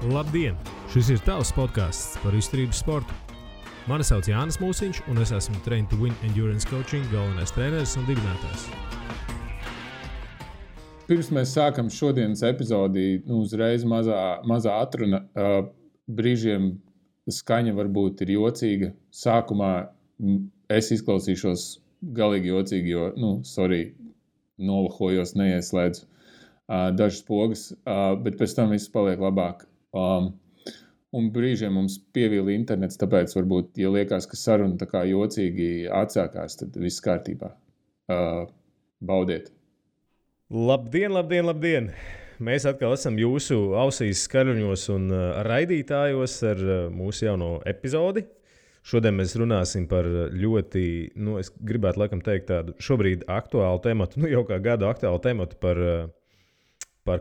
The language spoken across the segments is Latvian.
Labdien! Šis ir tavs podcasts par izturības sportu. Mani sauc Jānis Mūsiņš, un es esmu Train to Win Endurance Coaching galvenais treneris un dibinātājs. Pirms mēs sākam šodienas epizodi, uzreiz mazā atruna. Brīžiem skaņa varbūt ir jocīga. Sākumā es izklausīšos galīgi jocīgi, jo, nolahojos, neieslēdzu dažas pogas, bet pēc tam viss paliek labāk. Un brīžiem mums pievīla internets, tāpēc varbūt, ja liekas, ka saruna tā kā jocīgi atsākās, tad viss kārtībā. Baudiet! Labdien! Mēs atkal esam jūsu ausīs, skaļuņos un raidītājos ar mūsu jauno epizodi. Šodien mēs runāsim par ļoti, es gribētu laikam teikt tādu šobrīd aktuālu tematu, jau kā gadu aktuālu tematu par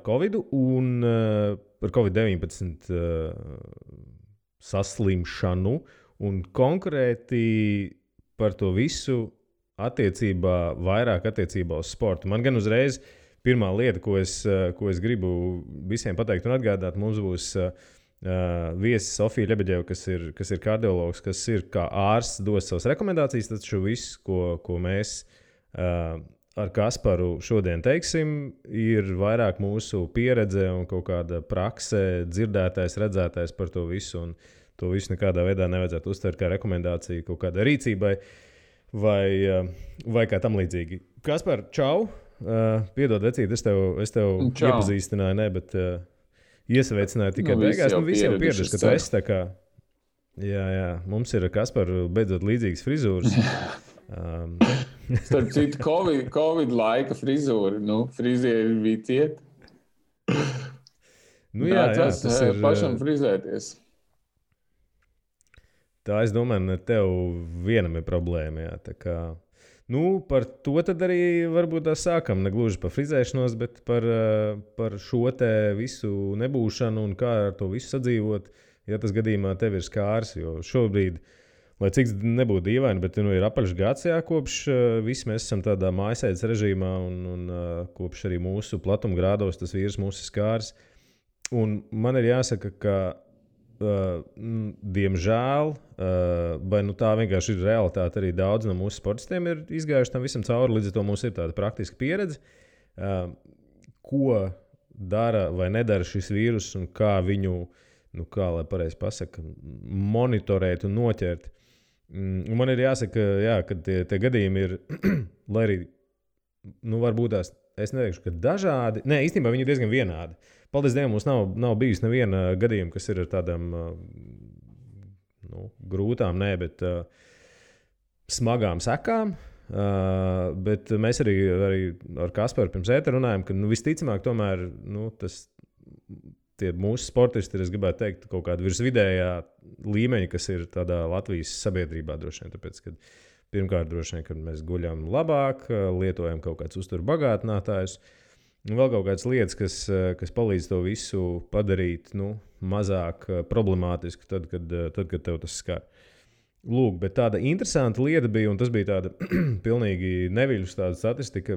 Covidu un par Covid-19 saslimšanu un konkrēti par to visu vairāk attiecībā uz sportu. Man gan uzreiz pirmā lieta, ko es gribu visiem pateikt un atgādāt, mums būs viesis Sofija Ļebeģeva, kas ir kardiologs, kas ir kā ārsts, dos savas rekomendācijas, taču viss, ko mēs ar Kasparu šodien teiksim, ir vairāk mūsu pieredze un kaut kāda prakse, dzirdētais, redzētais par to visu, un to visu nekādā veidā nevajadzētu uztvert kā rekomendāciju kaut kādai rīcībai vai kā tam līdzīgi. Kaspar, čau! Piedod, vecīt, es tev iepazīstināju, bet iesaveicināju tikai beigās. Visi jau pieraduši, ka tu esi tā kā... Jā, mums ir Kasparu beidzot līdzīgas frizūras. Starp citu, Covid laika frizūra, frizieri bija ciet. Tas ir pašam frizēties. Tā, es domāju, ne tev vienam ir problēma, jā, tā kā... Par to tad arī varbūt tā sākam, ne gluži par frizēšanos, bet par šo te visu nebūšanu un kā ar to visu sadzīvot, ja tas gadījumā tev ir skārs, jo šobrīd, lai cik nebūtu dīvaini, bet ir apaļš gads, kopš visi mēs esam tādā mājasēdes režīmā un kopš arī mūsu platumgrādos tas vīrus mūsu skārs. Un man ir jāsaka, ka diemžēl, vai tā vienkārši ir realitāte, arī daudz no mūsu sportistiem ir izgājuši tam visam cauri, līdz ar to mums ir tāda praktiska pieredze, ko dara vai nedara šis vīrus un kā viņu, kā lai pareizi pasaka, monitorēt un noķert. Un man ir jāsaka, ka tie gadījumi ir, lai arī, varbūt tās, es neteikšu, ka dažādi, īstenībā viņi ir diezgan vienādi. Paldies Dievam, mums nav bijis neviena gadījuma, kas ir ar tādām grūtām, bet smagām sekām. Bet mēs arī ar Kasparu pirms ētera runājam, ka visticamāk tomēr tie mūsu sportisti ir, es gribētu teikt, kaut kāda virsvidējā līmeņa, kas ir tādā Latvijas sabiedrībā droši vien. Tāpēc, kad pirmkārt droši vien, kad mēs guļam labāk, lietojam kaut kāds uzturu bagātinātājus, un vēl kaut kādas lietas, kas palīdz to visu padarīt mazāk problemātisku, tad, kad tev tas skar. Lūk, bet tāda interesanta lieta bija, un tas bija tāda pilnīgi neviļus tāda statistika,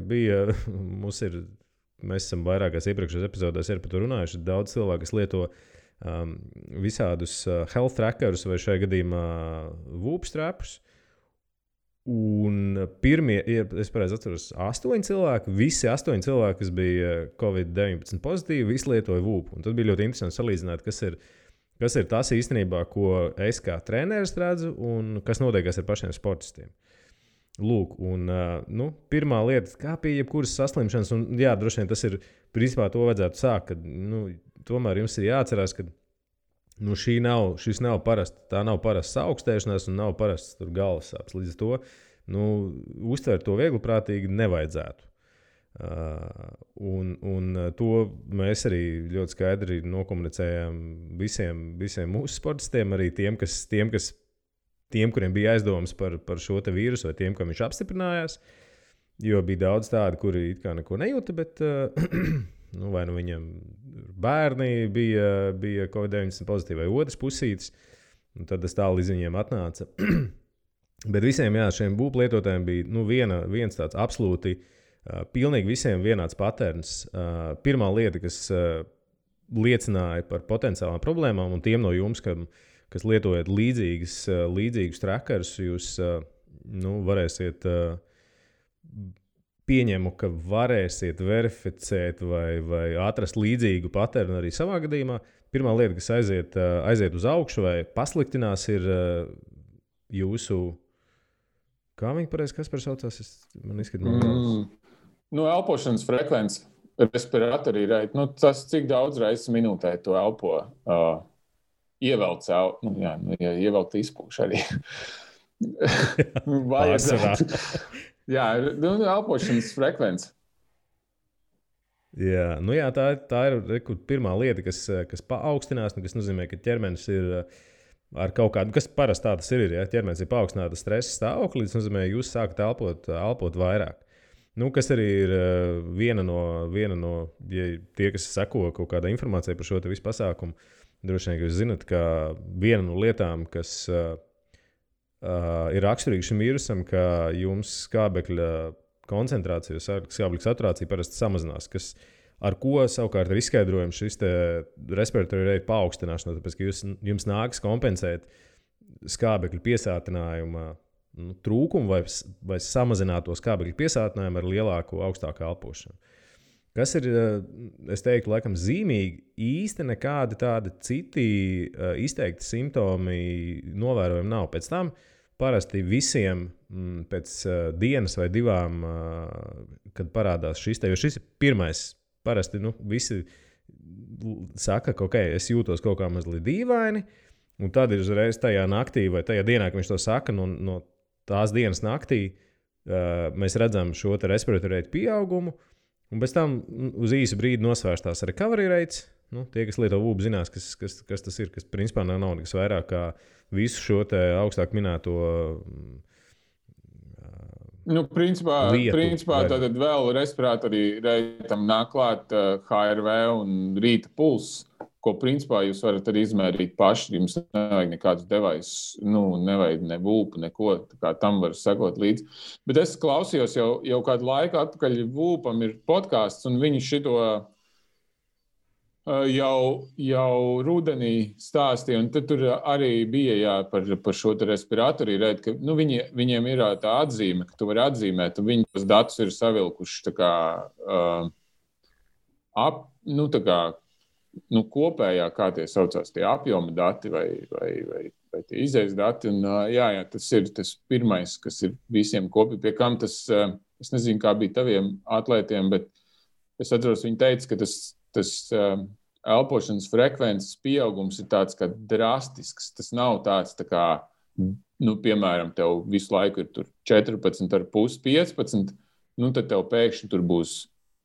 mēs esam vairākās iepriekšējās epizodēs par to runājuši, daudz cilvēku, kas lieto visādus health trackerus vai šajā gadījumā Whoop strapus. Un pirmie, es pareizi atceros, 8 cilvēki, visi 8 cilvēki, kas bija Covid-19 pozitīvi, visi lietoja Whoop. Un tad bija ļoti interesanti salīdzināt, kas ir tas īstenībā, ko es kā treneris redzu un kas notiekās ar pašiem sportistiem. Lūk, un pirmā lieta, kā pie jebkuras saslimšanas, un jā, droši vien tas ir, principā to vajadzētu sākt, kad tomēr jums ir jāatcerās, ka šis nav parasts, tā nav parasts augstēšanās un nav parasts galvas sāpes. Līdz ar to uztvert to viegliprātīgi nevajadzētu. Un to mēs arī ļoti skaidri nokomunicējām visiem mūsu sportistiem, arī tiem, kuriem bija aizdomas par šo te vīrusu vai tiem, kam viņš apstiprinājās, jo bija daudz tādi, kuri it kā neko nejūta, bet vai viņam bērni bija Covid-19 pozitīvi vai otrs pusītis, un tad tas tālu līdz viņiem atnāca. Bet visiem šiem Whoop lietotājiem bija viens tāds absolūti pilnīgi visiem vienāds paterns. Pirmā lieta, kas liecināja par potenciālām problēmām, un tiem no jums, kas lietojat līdzīgus trackerus, jūs varēsiet pieņemu, ka varēsiet verificēt vai atrast līdzīgu paternu arī savā gadījumā. Pirmā lieta, kas aiziet uz augšu vai pasliktinās, ir jūsu, kā viņi pareizi, kas par saucās? Man izskatās, elpošanas frekvence, respiratorī reit. Tas, cik daudz reizes minūtē to elpo, ievelc, ievelc izpūš arī. Vajadzētu. Jā, elpošanas frekvence. Jā, tā ir pirmā lieta, kas paaugstinās, kas nozīmē, ka ķermenis ir ar kaut kādu, kas parasti tā tas ir, ja ķermenis ir paaugstināta stresa stāvoklī, tas nozīmē, ka jūs sākat elpot vairāk. Kas arī ir viena no ja tie, kas seko kaut kāda informācija par šo te visu pasākumu, droši vien, ka jūs zinat, ka viena no lietām, kas ir raksturīgi šim vīrusam, ka jums skābekļa koncentrācija, skābekļa saturācija parasti samazinās, ar ko savukārt ir izskaidrojams šis respiratory rate paaugstināšana, tāpēc, ka jums nāks kompensēt skābekļa piesātinājuma trūkumu vai samazināto skābekļa piesātinājumu ar lielāku, augstāku elpošanu. Kas ir, es teiktu, laikam zīmīgi, īsti nekādi tādi citi izteikti simptomi novērojumi nav. Pēc tam parasti visiem pēc dienas vai divām, kad parādās šis jo šis ir pirmais, parasti visi saka, ka es jūtos kaut kā mazliet dīvaini, un tad ir uzreiz tajā naktī vai tajā dienā, kad viņš to saka, no tās dienas naktī mēs redzam šo te respiratory rate pieaugumu, un pēc tam uz īsu brīdi nosvērstās recovery rates. Tie, kas lieto vūbu, zinās, kas tas ir, kas principā nav nekas vairāk kā visu šo te augstāk minēto Principā tātad vēl respiratorī reitam nāk klāt HRV un rīta pulss, ko principā jūs varat arī izmērīt paši. Jums nevajag nekādus devaisus, nevajag ne vūpu, neko, tā kā tam var sekot līdzi. Bet es klausījos jau kādu laiku atpakaļ vūpam ir podcasts, un viņi šito jau rudenī stāstīja, un tad tur arī bija par šo respiratorī reit, ka viņiem ir tā atzīme, ka tu vari atzīmēt, un viņi tos datus ir savilkuši tā kā kopējā, kā tie saucās, tie apjoma dati vai tie izējas dati. Un, tas ir tas pirmais, kas ir visiem kopīgi. Pie kam tas, es nezinu, kā bija taviem atlētiem, bet es atceros, viņi teica, ka tas elpošanas frekvences pieaugums ir tāds kā drastisks. Tas nav tāds tā kā, piemēram, tev visu laiku ir tur 14,5, 15, tad tev pēkšņi tur būs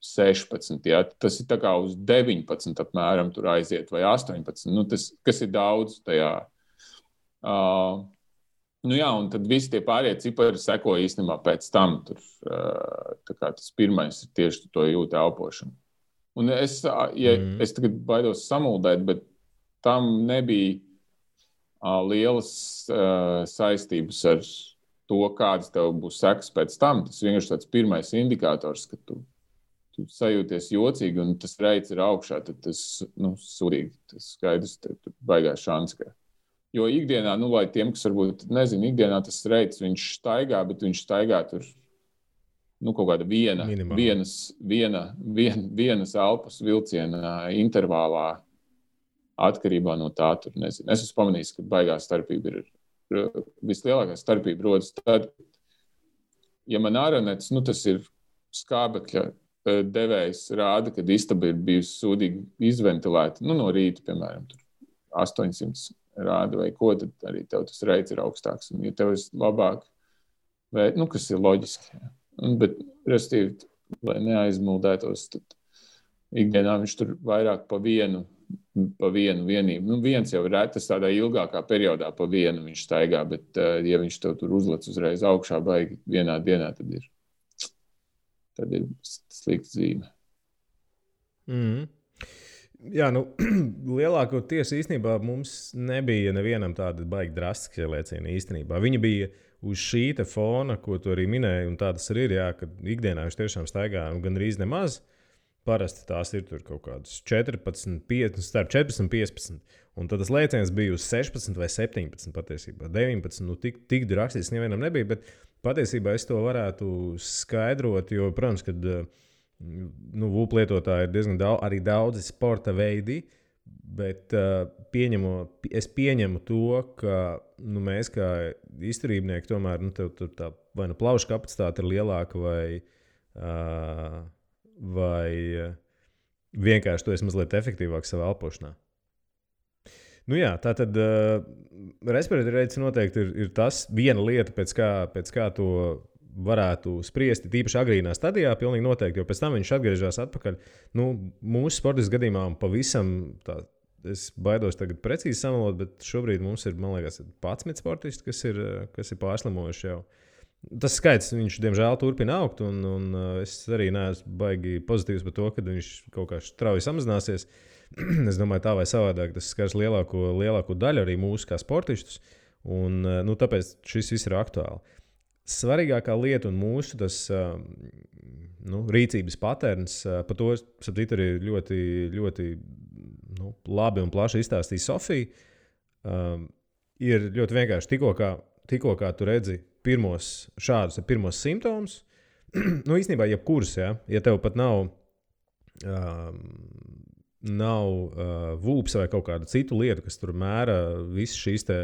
16, ja? Tas ir tā kā uz 19 apmēram tur aiziet vai 18, tas, kas ir daudz tajā. Un tad visi tie pārējie cipari seko īstenībā pēc tam. Tur, tā kā tas pirmais ir tieši to jūtu elpošanu. Un es tagad baidos samuldēt, bet tam nebija lielas saistības ar to, kādas tev būs sekas pēc tam. Tas vienkārši tāds pirmais indikators, ka tu sajūties jocīgi un tas reits ir augšā, tad tas, sūdīgi, tas skaidrs, tur baigās šans. Jo ikdienā, lai tiem, kas varbūt nezinu, ikdienā tas reits, viņš staigā, bet viņš staigā tur, kaut kāda vienas elpas vilciena intervālā atkarībā no tā, tur nezinu. Es esmu pamanījis, ka baigā starpība ir, vislielākā starpība rodas tad, ja man āronets, tas ir skābekļa devējs rāda, kad istaba ir bijusi sūdīgi izventilēta, no rīta, piemēram, tur 800 rāda vai ko, tad arī tev tas reits ir augstāks. Un, ja tev ir labāk, kas ir loģiski, bet, restīvi, lai neaizmuldētos, tad ikdienā viņš tur vairāk pa vienu vienību. Viens jau ir retas tādā ilgākā periodā pa vienu viņš staigā, bet, ja viņš tev tur uzlec uzreiz augšā baigi vienā dienā, tad ir slikta zīme. Jā, lielākoties īstenībā mums nebija nevienam tāda baigi drastiska ielieciena īstenībā. Viņa bija uz šī te fona, ko tu arī minēji, un tā tas arī ir, jā, ka ikdienā viņš tiešām staigā gandrīz nemaz. parasti tās ir tur kaut kādas 14, 15, starp 14 un 15. Un tad tas lēciens bija uz 16 vai 17 patiesībā. 19, nu tik rakstīts nevienam nebija, bet patiesībā es to varētu skaidrot, jo, protams, kad VUP lietotāji ir diezgan arī daudzi sporta veidi, bet es pieņemu to, ka mēs kā izturībnieki tomēr tev tā vai plaušu kapacitāte ir lielāka vai vienkārši tu esi mazliet efektīvāks savā elpošanā. Nu jā, tā tad respirator rates noteikti ir tas viena lieta, pēc kā to varētu spriest, tīpaši agrīnā stadijā, pilnīgi noteikti, jo pēc tam viņš atgriežas atpakaļ. Mūsu sportistu gadījumā pavisam, es baidos tagad precīzi samalot, bet šobrīd mums ir, man liekas, 11 sportisti, kas ir pārslimojuši jau. Tas skaits, viņš diemžēl turpina augt, un es arī neesmu baigi pozitīvs par to, ka viņš kaut kā strauji samazināsies. Es domāju, tā vai savādāk tas skars lielāko daļu arī mūsu kā sportistus, un tāpēc šis viss ir aktuāli. Svarīgākā lieta un mūsu tas, rīcības paterns, par to saptīt arī ļoti, ļoti labi un plaši izstāstīja Sofija. Ir ļoti vienkārši tikko kā tu redzi pirmos simptomus, īstenībā jebkurus, ja tev pat nav VUPs vai kaut kāda citu lietu, kas tur mēra visas šīs te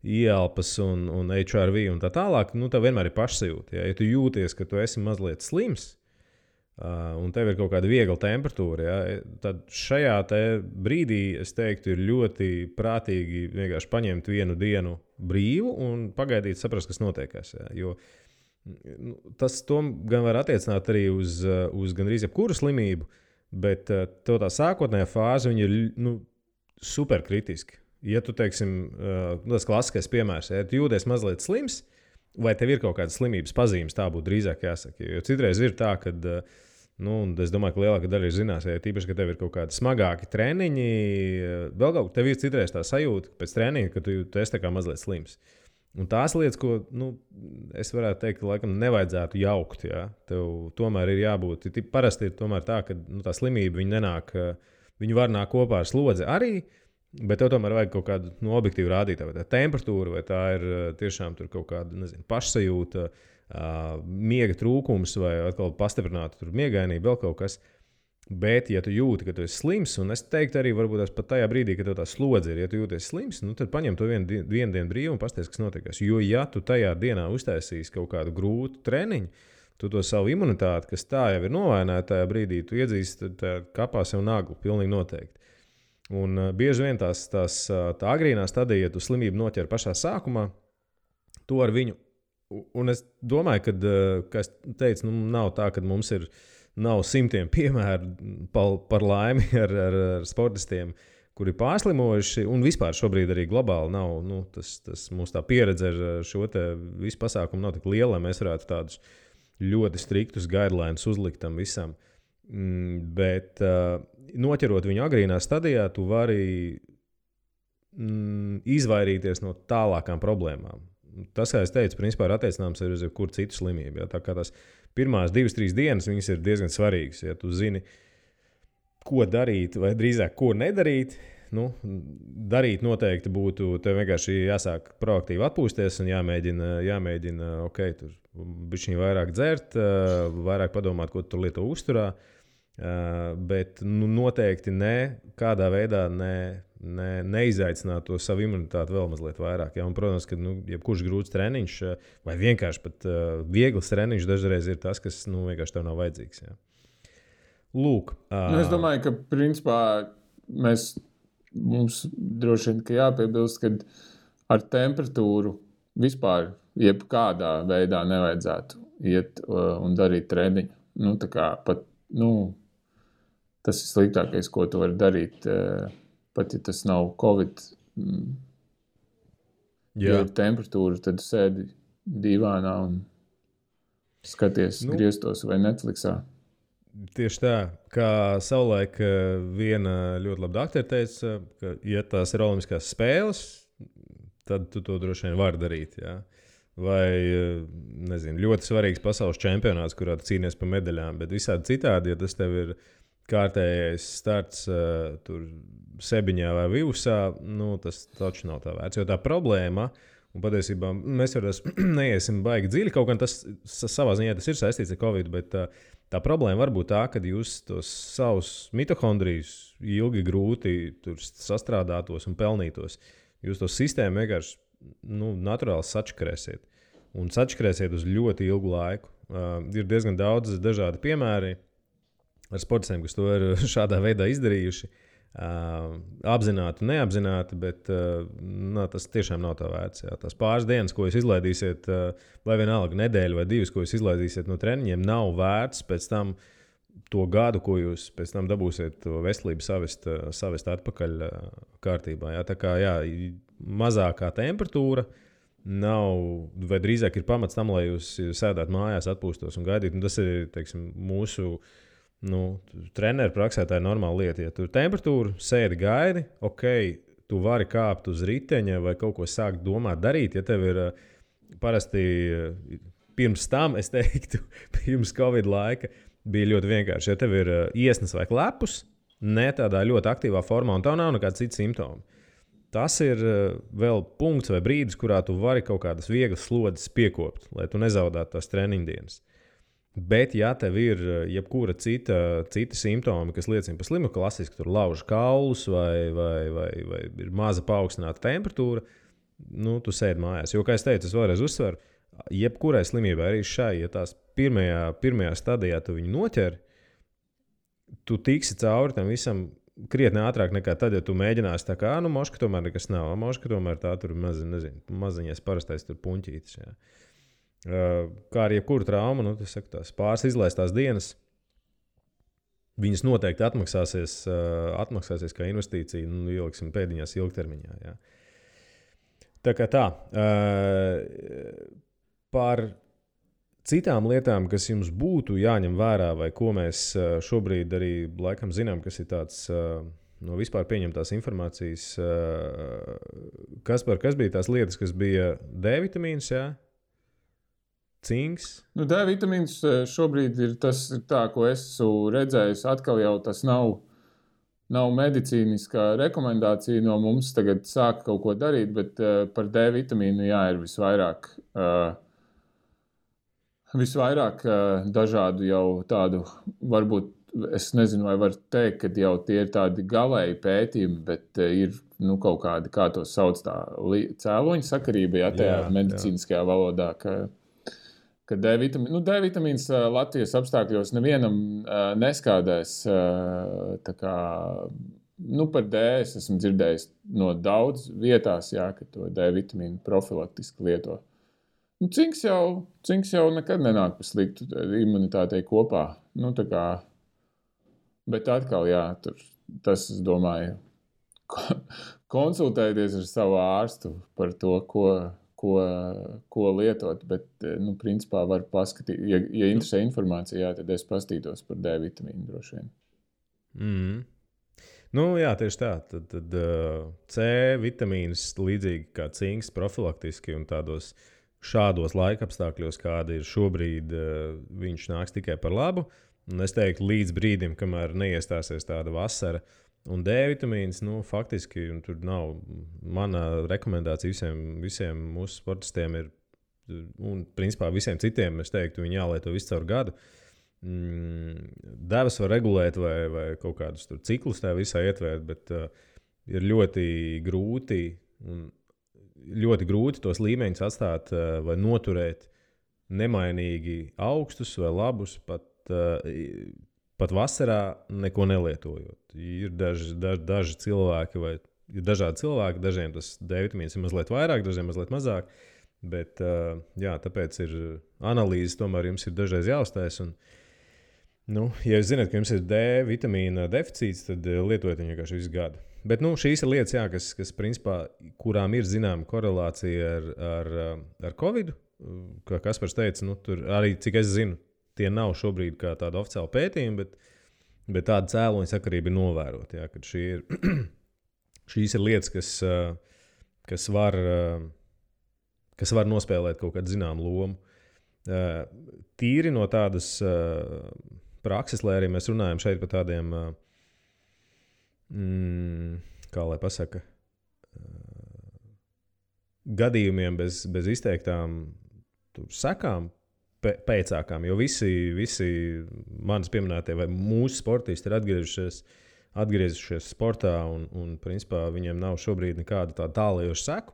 ieelpas un HRV un tā tālāk, tev vienmēr ir pašsajūta. Ja tu jūties, ka tu esi mazliet slims un tev ir kaut kāda viegla temperatūra, tad šajā te brīdī, es teiktu, ir ļoti prātīgi vienkārši paņemt vienu dienu brīvu un pagaidīt, saprast, kas notiekās. Jo tas gan var attiecināt arī uz gandrīz jebkuru slimību, bet tev tā sākotnējā fāze ir superkritiski. Ja tu, teiksim, tas klasiskais piemērs, ja tu jūties mazliet slims, vai tev ir kaut kādas slimības pazīmes, tā būtu drīzāk jāsaka. Jo citreiz ir tā, ka, es domāju, ka lielākā daļa ir zinās, ja tīpaši, ka tev ir kaut kādi smagāki treniņi, vēl kaut tev ir citreiz tā sajūta pēc treniņa, ka tu esi tā kā mazliet slims. Un tās lietas, ko es varētu teikt, ka laikam nevajadzētu jaukt. Ja? Tev tomēr ir jābūt. Parasti ir tomēr tā, ka tā slimība viņa var nākt kopā ar slodzi arī, bet tev tomēr vajag kaut kādu objektīvu rādītāju. Vai tā temperatūra, vai tā ir tiešām tur kaut kāda pašsajūta, miega trūkums vai atkal pastiprināta miegainība, vēl kaut kas. Bet, ja tu jūti, ka tu esi slims, un es teiktu arī varbūt pat tajā brīdī, kad tev tā slodze ir, ja tu jūties slims, tad paņem to vienu dienu brīvu un pasties, kas notiekās. Jo, ja tu tajā dienā uztaisīsi kaut kādu grūtu treniņu, tu to savu imunitāti, kas tā jau ir novaināta tajā brīdī, tu iedzīsti kapā sev naglu, pilnīgi noteikti. Un bieži vien tā agrīnā stadija, ja tu slimību noķer pašā sākumā, to ar viņu, un es domāju, ka es teicu, nav tā, ka mums nav simtiem piemēru par laimi ar sportistiem, kuri pārslimojuši, un vispār šobrīd arī globāli nav. Mums tā pieredze ar šo visu pasākumu nav tik liela, lai mēs varētu tādus ļoti striktus guidelines uzlikt tam visam. Bet noķerot viņu agrīnā stadijā, tu vari izvairīties no tālākām problēmām. Tas, kā es teicu, principā ir attiecināms arī uz jebkuru citu slimību. Ja? Tā kā tās pirmās 2-3 dienas viņas ir diezgan svarīgas. Ja tu zini, ko darīt, vai drīzāk ko nedarīt, darīt noteikti būtu, tev vienkārši jāsāk proaktīvi atpūsties un jāmēģina tur bišķiņ vairāk dzert, vairāk padomāt, ko tu tur lieto uzturā, bet noteikti kādā veidā neizaicināt to savu imunitāti vēl mazliet vairāk. Ja? Un, protams, ka jebkurš grūts treniņš vai vienkārši pat viegls treniņš dažreiz ir tas, kas vienkārši tev nav vajadzīgs. Ja? Lūk. Es domāju, ka principā mums droši vien jāpiebilst, ka ar temperatūru vispār jebkādā veidā nevajadzētu iet un darīt treniņu. Tas ir sliktākais, ko tu vari darīt. Pat ja tas nav Covid, ja ir temperatūra, tad sēdi dīvānā un skaties griestos vai Netflixā. Tieši tā, kā savulaik viena ļoti laba doktora teica, ka, ja tās ir olimpiskās spēles, tad tu to droši vien vari darīt. Ja? Vai, ļoti svarīgs pasaules čempionāts, kurā tu cīnies par medaļām, bet visādi citādi, ja tas tev ir kārtējais starts tur Sebiņā vai Vivusā, nu, tas taču nav tā vērts. Jo tā problēma, un patiesībā mēs vairs neiesim baigi dziļi, kaut gan tas savā ziņā tas ir saistīts ar Covid, bet tā problēma var būt tā, ka jūs tos savus mitohondrijus ilgi grūti tur sastrādātos un pelnītos. Jūs to sistēmu vienkārši naturāli sačakarēsiet. Un sačakarēsiet uz ļoti ilgu laiku. Ir diezgan daudz dažādi piemēri ar sportistiem, kas to ir šādā veidā izdarījuši. Apzināti, neapzināti, bet tas tiešām nav tā vērts. Jā. Tās pāris dienas, ko jūs izlaidīsiet, vai vienalga nedēļa vai divas, ko jūs izlaidīsiet no treniņiem, nav vērts pēc tam to gadu, ko jūs pēc tam dabūsiet to veselību savest atpakaļ kārtībā. Jā. Tā kā mazākā temperatūra nav, vai drīzāk ir pamats tam, lai jūs sēdētu mājās, atpūstos un gaidītu. Un tas ir, teiksim, mūsu treneru praksē tā ir normāla lieta. Ja tur temperatūra, sēdi, gaidi, ok, tu vari kāpt uz riteņa vai kaut ko sākt domāt, darīt. Ja tev ir parasti pirms tam, es teiktu, pirms Covid laika, bija ļoti vienkārši. Ja tev ir iesnas vai klepus, ne tādā ļoti aktīvā formā, un tev nav nekāda cita simptoma. Tas ir vēl punkts vai brīdis, kurā tu vari kaut kādas vieglas slodzes piekopt, lai tu nezaudētu tās treniņdienas. Bet, ja tev ir jebkura cita simptoma, kas liecina par slimu, klasiski tur lauž kaulus vai ir maza paaugstināta temperatūra, tu sēdi mājās. Jo, kā es teicu, es vēlreiz uzsveru, jebkurai slimībai, arī šai, ja tās pirmajā stadijā tu viņu noķer, tu tiksi cauri tam visam krietni ātrāk nekā tad, ja tu mēģināsi tā kā, moška tomēr nekas nav, moška tomēr tā tur maziņais parastais tur puņķītis, jā. Kā ar jebkuru traumu, tās pāris izlaistās dienas, viņas noteikti atmaksāsies kā investīcija, ieliksim pēdiņās ilgtermiņā, jā. Tā kā tā, par citām lietām, kas jums būtu jāņem vērā, vai ko mēs šobrīd arī laikam zinām, kas ir tāds no vispār pieņemtās informācijas, kas bija tās lietas, kas bija D vitamīns, jā? Cinks? D vitamīns šobrīd ir tas, tā, ko esmu redzējis, atkal jau tas nav medicīniskā rekomendācija no mums tagad sākt kaut ko darīt, bet par D vitamīnu ir visvairāk dažādu jau tādu, varbūt, es nezinu, vai var teikt, ka jau tie ir tādi galēji pētījumi, bet ir kaut kādi, kā to sauc, tā cēloņa sakarība, ja tajā medicīniskajā valodā, ka D vitamīns Latvijas apstākļos nevienam neskādēs. Tā kā, par D es esmu dzirdējis no daudz vietās, ka to D vitamīnu profilaktiski lieto. Cinks jau nekad nenāk par sliktu imunitātei kopā. Tā kā, bet atkal, tas, es domāju, konsultēties ar savu ārstu par to, ko lietot, bet, principā var paskatīt, ja interesē informācija, tad es pastītos par D vitamīnu droši vien. Tieši tā. Tad C vitamīns līdzīgi kā cinks profilaktiski un šādos laikapstākļos, kādi ir šobrīd, viņš nāks tikai par labu. Un es teiktu, līdz brīdim, kamēr neiestāsies tāda vasara, un D vitamīns, faktiski, un tur nav mana rekomendācija visiem mūsu sportistiem ir, un principā visiem citiem, es teiktu, viņi jālieto visu caur gadu. Devas var regulēt vai kaut kādus tur ciklus tā visā ietvērt, bet ir ļoti grūti tos līmeņus atstāt vai noturēt nemainīgi augstus vai labus, pat vasarā neko nelietojot. Ir daži cilvēki, vai ir dažādi cilvēki, dažiem tas D vitamīns ir mazliet vairāk, dažiem mazliet mazāk, bet tāpēc ir analīzes, tomēr jums ir dažreiz jāuztais. Un, ja jūs zināt, ka jums ir D vitamīna deficīts, tad lietojiet viņu vienkārši visu gadu. Bet šīs ir lietas, kas principā, kurām ir zināma korelācija ar Covid, kā Kaspars teica, tur arī, cik es zinu, tie nav šobrīd kā tāda oficiāla pētījuma, bet tāda cēloņa sakarība ir novērota. Kad šīs ir lietas, kas var nospēlēt kaut kādu zināmu lomu. Tīri no tādas prakses, lai arī mēs runājam šeit par tādiem, kā lai pasaka, gadījumiem bez izteiktām sekām, pēcākām, jo visi manas pieminētie vai mūsu sportisti ir atgriezušies sportā un principā viņiem nav šobrīd nekāda tā tālajoša seku.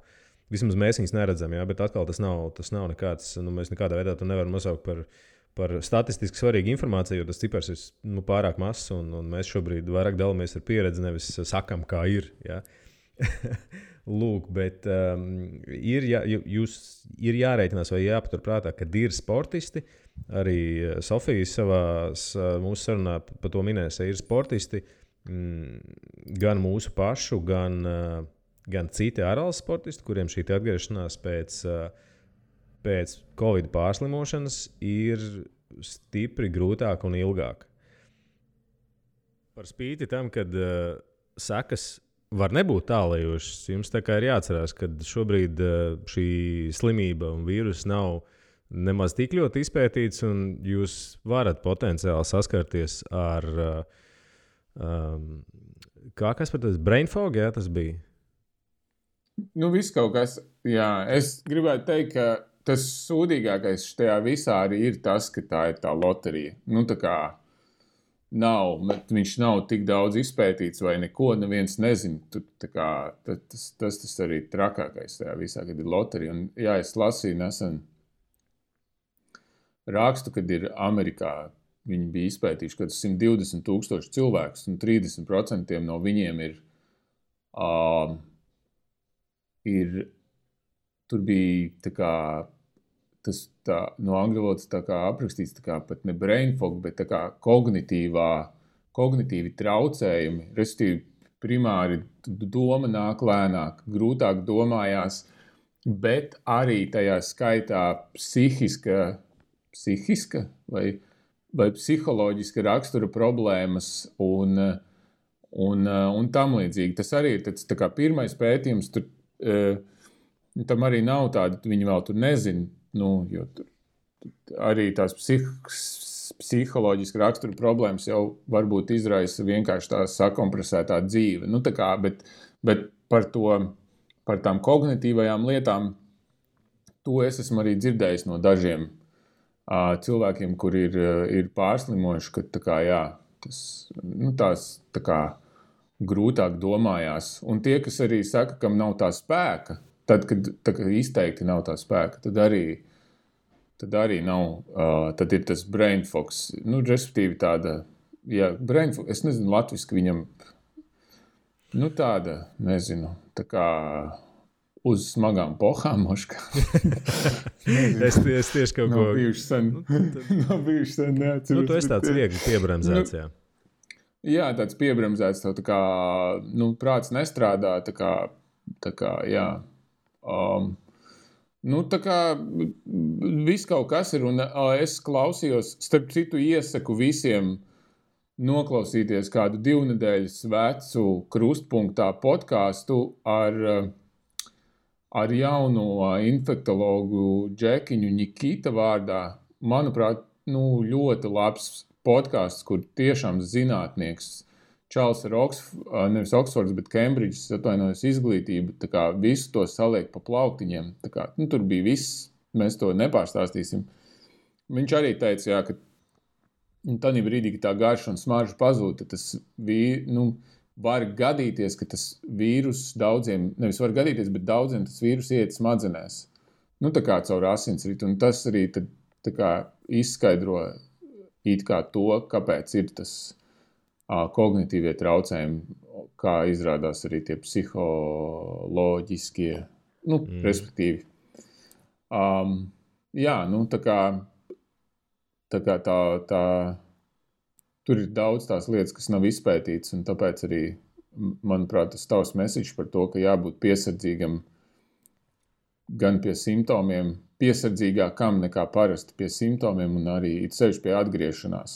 Vismaz mēs viņus neredzam, bet atkal tas nav nekāds, mēs nekādā veidā to nevaram nosaukt par statistiski svarīgu informāciju, jo tas cipars ir pārāk mazs un mēs šobrīd vairāk dalāmies ar pieredzi, nevis sakam, kā ir. Ja? Lūk, bet ir jārēķinās vai jāpaturprātā, kad ir sportisti. Arī Sofija mūsu sarunā par to minēja, ir sportisti gan mūsu pašu, gan citi ārvalstu sportisti, kuriem šī atgriešanās pēc Covid pārslimošanas ir stipri grūtāka un ilgāka. Par spīti tam, kad sekas var nebūt tālajošas, jums tā kā ir jāatcerās, ka šobrīd šī slimība un vīrus nav nemaz tik ļoti izpētīts, un jūs varat potenciāli saskarties ar kas par tas brain fog, jā, tas bija? Viss kaut kas, jā. Es gribētu teikt, ka tas sūdīgākais šajā visā arī ir tas, ka tā ir tā loterija. Tā kā viņš nav tik daudz izpētīts vai neko, neviens nezina. Tas arī trakākais tajā visā, kad ir loterija. Un, jā, es lasīju nesen rakstu, kad ir Amerikā, viņi bija izpētījuši, ka 120,000 cilvēkus un 30% no viņiem tur bija no angļu valodas aprakstīts pat ne brain fog, bet kognitīvi traucējumi, respektīvi primāri doma nāk lēnāk, grūtāk domājās, bet arī tajā skaitā psihiska vai psiholoģiska rakstura problēmas un tam līdzīgi. Tas arī ir tāds pirmais pētījums, tam arī nav tāda, viņi vēl tur nezina, jo tur arī tās psiholoģiska rakstura problēmas jau varbūt izraisa vienkārši tā sakompresētā dzīve. Bet par tām kognitīvajām lietām, to es esmu arī dzirdējis no dažiem cilvēkiem, kuri ir pārslimojuši, ka tās grūtāk domājās. Un tie, kas arī saka, kam nav tā spēka, tad, kad izteikti nav tā spēka, tad arī nav, tad ir tas brain fogs. Respektīvi tāda, brain fog, es nezinu latviski viņam, tāda, nezinu, tā kā uz smagām pohām, moškā. es tieši kaut ko... Nav bijuši sen, neatceros. Tu esi tāds viegli piebremzēts, jā. Jā, tāds piebremzēts, tā kā, prāts nestrādā, tā kā, jā. Tā kā viss kaut kas ir, un es klausījos, starp citu iesaku visiem noklausīties kādu 2 nedēļas vecu Krustpunktā podcastu ar jauno infektologu Džekiņu Nikita vārdā. Manuprāt, ļoti labs podcasts, kur tiešām zinātnieks Čārls ar nevis Oksfords, bet Kembridžas, atvainojos, izglītība, tā kā visu to saliek pa plauktiņiem. Tā kā, tur bija viss, mēs to nepārstāstīsim. Viņš arī teica, jā, ka tādā brīdī, kad tā garša un smarža pazūd, tad tas var gadīties, ka tas vīrus daudziem, nevis var gadīties, bet daudziem tas vīrus iet smadzenēs. Tā kā caur asinsritu, un tas arī tad, tā kā izskaidro it kā to, kāpēc ir tas kognitīvie traucējumi, kā izrādās arī tie psiholoģiskie, respektīvi. Jā, tā kā tur ir daudz tās lietas, kas nav izpētītas, un tāpēc arī, manuprāt, tas tavs message par to, ka jābūt piesardzīgam gan pie simptomiem, piesardzīgākam nekā parasti pie simptomiem, un arī it sevišķi pie atgriešanās,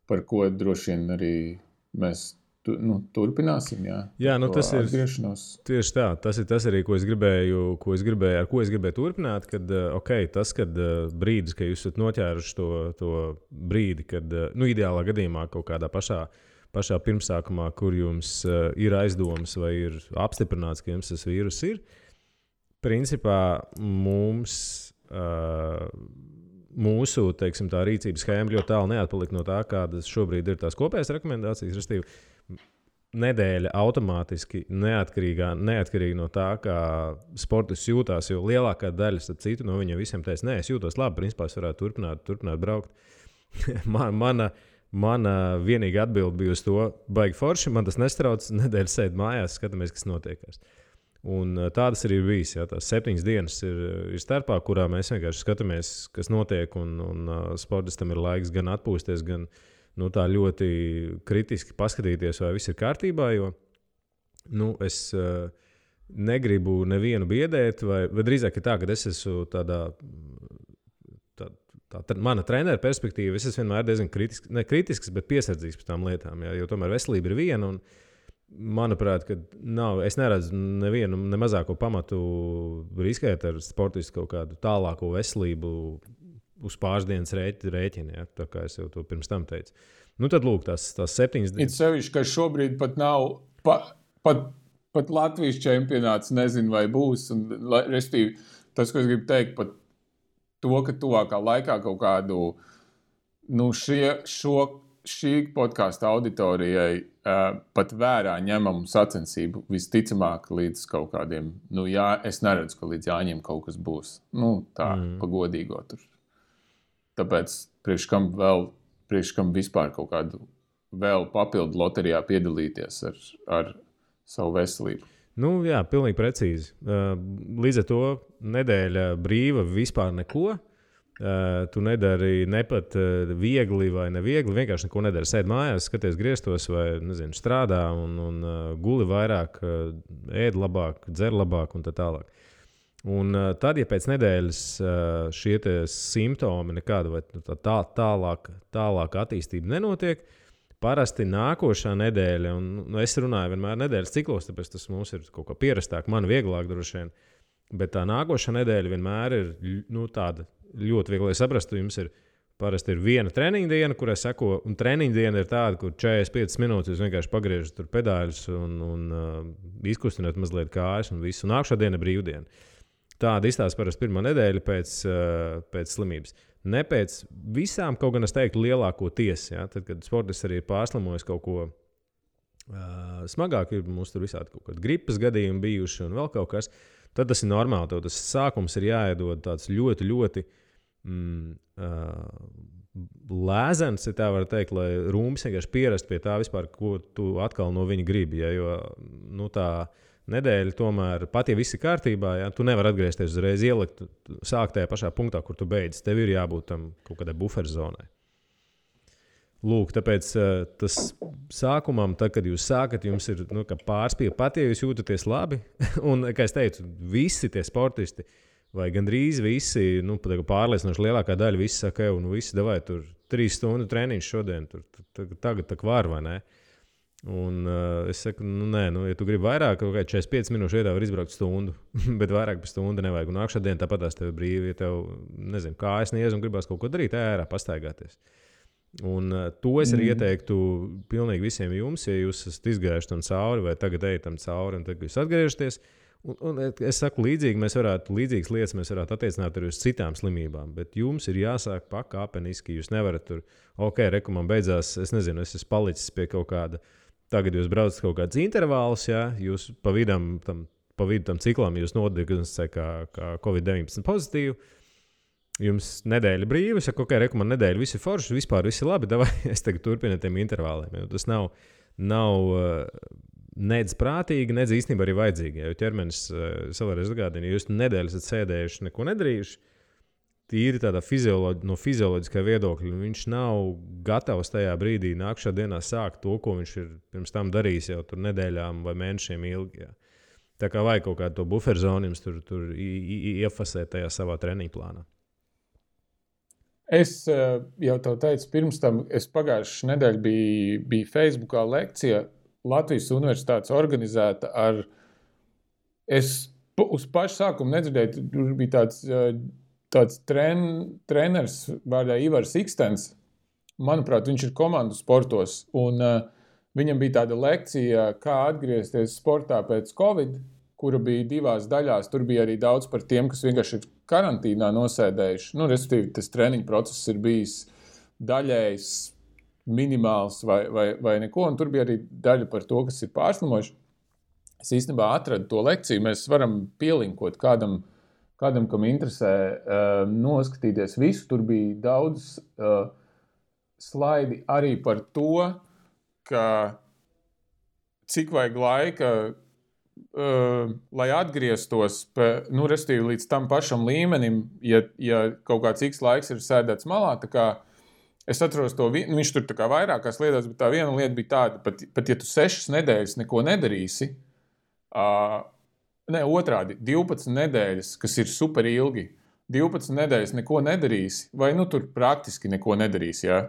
par ko droši vien arī mēs turpināsim, jā. Jā, tas ir atgriešanos. Tieši tā. Tas ir arī, ar ko es gribēju turpināt. Kad, kad brīdis, kad jūs esat noķēruši to brīdi, kad, ideālā gadījumā kaut kādā pašā pirmsākumā, kur jums ir aizdomas vai ir apstiprināts, ka jums tas vīrus ir, principā mūsu teiksim, tā rīcības schēma ļoti tālu neatpalika no tā, kādas šobrīd ir tās kopējās rekomendācijas. Restīvi, nedēļa automātiski neatkarīgi no tā, kā sportists jūtās, jo lielākā daļa citu no viņiem visiem teica, nē, es jūtos labi, principā es varētu turpināt braukt. Mana vienīgā atbilde bija uz to, baigi forši, man tas nestrauc, nedēļa sēd mājās, skatāmies, kas notiekās. Un tādas arī ir bijis. Jā, tās 7 dienas ir starpā, kurā mēs vienkārši skatāmies, kas notiek, un sportistam ir laiks gan atpūsties, gan tā ļoti kritiski paskatīties, vai viss ir kārtībā, jo es negribu nevienu biedēt, vai drīzāk ir tā, ka es esmu tādā mana trenera perspektīva, es esmu vienmēr diezgan kritisks, bet piesardzīgs par tām lietām, jā, jo tomēr veselība ir viena, un manuprāt, es neredzu nevienu mazāko pamatu riskēt ar sportistu kaut kādu tālāko veselību uz pāris dienas rēķina, ja, tā kā es jau to pirms tam teicu. Tad lūk, tās 7 dienas. Ir sevišķi, ka šobrīd pat nav, pat Latvijas čempionāts nezinu, vai būs, un restīvi, tas, ko es gribu teikt, pat to, ka tuvākā laikā kaut kādu, šī podkāsta auditorijai pat vērā ņemamu sacensību visticamāk līdz kaut kādiem, es neredzu, ka līdz Jāņiem kaut kas būs. Pa godīgo tur. Tāpēc priekš kam vispār kaut kādu vēl papildu loterijā piedalīties ar savu veselību. Jā, pilnīgi precīzi. Līdz ar to nedēļa brīva vispār neko. Tu nedari ne pat viegli vai neviegli, vienkārši neko nedari. Sēd mājās, skaties griestos vai, strādā un guli vairāk, ēd labāk, dzer labāk un tā tālāk. Un tad, ja pēc nedēļas šie simptomi nekāda vai tālāk attīstība nenotiek, parasti nākošā nedēļa, un es runāju vienmēr nedēļas ciklos, tāpēc tas mums ir kaut kā pierastāk, man vieglāk droši vien, bet tā nākošā nedēļa vienmēr ir tāda ļoti viegli saprast. Jums parasti ir viena treniņa diena, kurai seko, un treniņa diena ir tāda, kur 45 minūtes jūs vienkārši pagriežat tur pedāļus un izkustināt mazliet kājas un visu. Un nākošā diena ir brīvdiena. Tāda izstāsta parasti pirmā nedēļa pēc slimības. Ne pēc visām, kaut gan es teiktu, lielākoties. Ja? Tad, kad sportists arī ir pārslimojis kaut ko smagāk, ir mums tur visādi kaut kādi gripas gadījumi bijuši un vēl kaut kas, tad tas ir normāli. Tev tas sākums ir jāiedod tāds ļoti, ļoti lēzens, ja tā var teikt, lai rūmis vienkārši pierast pie tā vispār, ko tu atkal no viņa gribi. Ja? Jo tā nedēļa tomēr, pat ja viss ir kārtībā, ja, tu nevari atgriezties uzreiz ielikt, sākt tajā pašā punktā, kur tu beidz. Tev ir jābūt tam kaut kādai buferzonai. Lūk, tāpēc tas sākumam, tad, kad jūs sākat, jums ir pārspīle, pat ja jūs jūtaties labi. Un, kā es teicu, visi tie sportisti, vai gandrīz visi, pārliecinoši lielākā daļa, visi saka, visi davai tur 3 stundu treniņš šodien, tagad tā var vai ne? Un es saku, nē, ja tu gribi vairāk, kaut kā 45 minūšu vietā var izbraukt stundu, bet vairāk par stundu nevajag. Un nākšā diena tāpat tās tev ir brīvi, ja tev, kājas niez un gribās kaut ko darīt, ārā pastaigāties. Un to es arī ieteiktu pilnīgi visiem jums, ja jūs esat izgājuši tam cauri vai tagad ejat tam cauri un tagad jūs atgriežaties. Un es saku, līdzīgas lietas mēs varētu attiecināt arī uz citām slimībām, bet jums ir jāsāk pakāpeniski. Jūs nevarat tur, man beidzās, es nezinu, es esmu palicis pie kaut kāda, tagad jūs braucat kaut kāds intervāls, ja, jūs pa vidu tam ciklam jūs nodiagnosticējat kā COVID-19 pozitīvu. Jums nedēļa brīva, saka, man nedēļa viss ir forši, vispār viss ir labi, davai, es tagad turpinu tiem intervāliem. Tas nav nedz prātīgi, nedz īstenībā arī vajadzīgi. Jo ķermenis savreiz atgādina, ja jūs nedēļu esat sēdējuši, neko nedarījuši, tīri tādā no fizioloģiskā viedokļa, viņš nav gatavs tajā brīdī nākšā dienā sākt to, ko viņš ir pirms tam darījis jau tur nedēļām vai mēnešiem ilgi. Jā. Tā kā vajag kaut kādu to buferzonu jums tur iefasēt tajā savā treniņu plānā. Es jau tev teicu, pirms tam es pagājušajā nedēļā biju Facebookā lekcija Latvijas universitātes organizēta ar... Es uz pašu sākumu nedzirdēju, tur bija tāds treneris vārdā Ivars Ikstens. Manuprāt, viņš ir komandu sportos, un viņam bija tāda lekcija, kā atgriezties sportā pēc Covid, kura bija 2 daļās. Tur bija arī daudz par tiem, kas vienkārši ir karantīnā nosēdējuši. Respektīvi, tas treniņu process ir bijis daļējs, minimāls vai neko, un tur bija arī daļa par to, kas ir pārslimojuši. Es īstenībā atradu to lekciju, mēs varam pielinkot kādam, kam interesē noskatīties visu. Tur bija daudz slaidi arī par to, ka cik vajag laika, lai atgrieztos respektīvi līdz tam pašam līmenim, ja kaut kāds X laiks ir sēdēts malā. Tā kā es atceros to, viņš tur tā kā vairākās lietās, bet tā viena lieta bija tāda, pat ja tu 6 nedēļas neko nedarīsi, otrādi, 12 nedēļas, kas ir super ilgi, 12 nedēļas neko nedarīsi, vai tur praktiski neko nedarīsi, ja?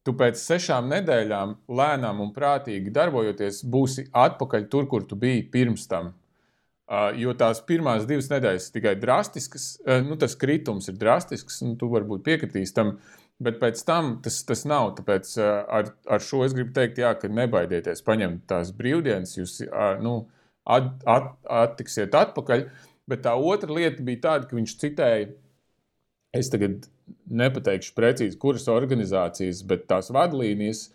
Tu pēc 6 nedēļām lēnām un prātīgi darbojoties būsi atpakaļ tur, kur tu biji pirms tam. Jo tās pirmās 2 nedēļas tikai drastiskas, tas kritums ir drastisks, un tu varbūt piekritīs tam, bet pēc tam tas nav. Tāpēc ar šo es gribu teikt, jā, ka nebaidieties paņemt tās brīvdienas, jūs attiksiet atpakaļ, bet tā otra lieta bija tāda, ka viņš citēja, es tagad nepateikšu precīzi, kuras organizācijas, bet tās vadlīnijas,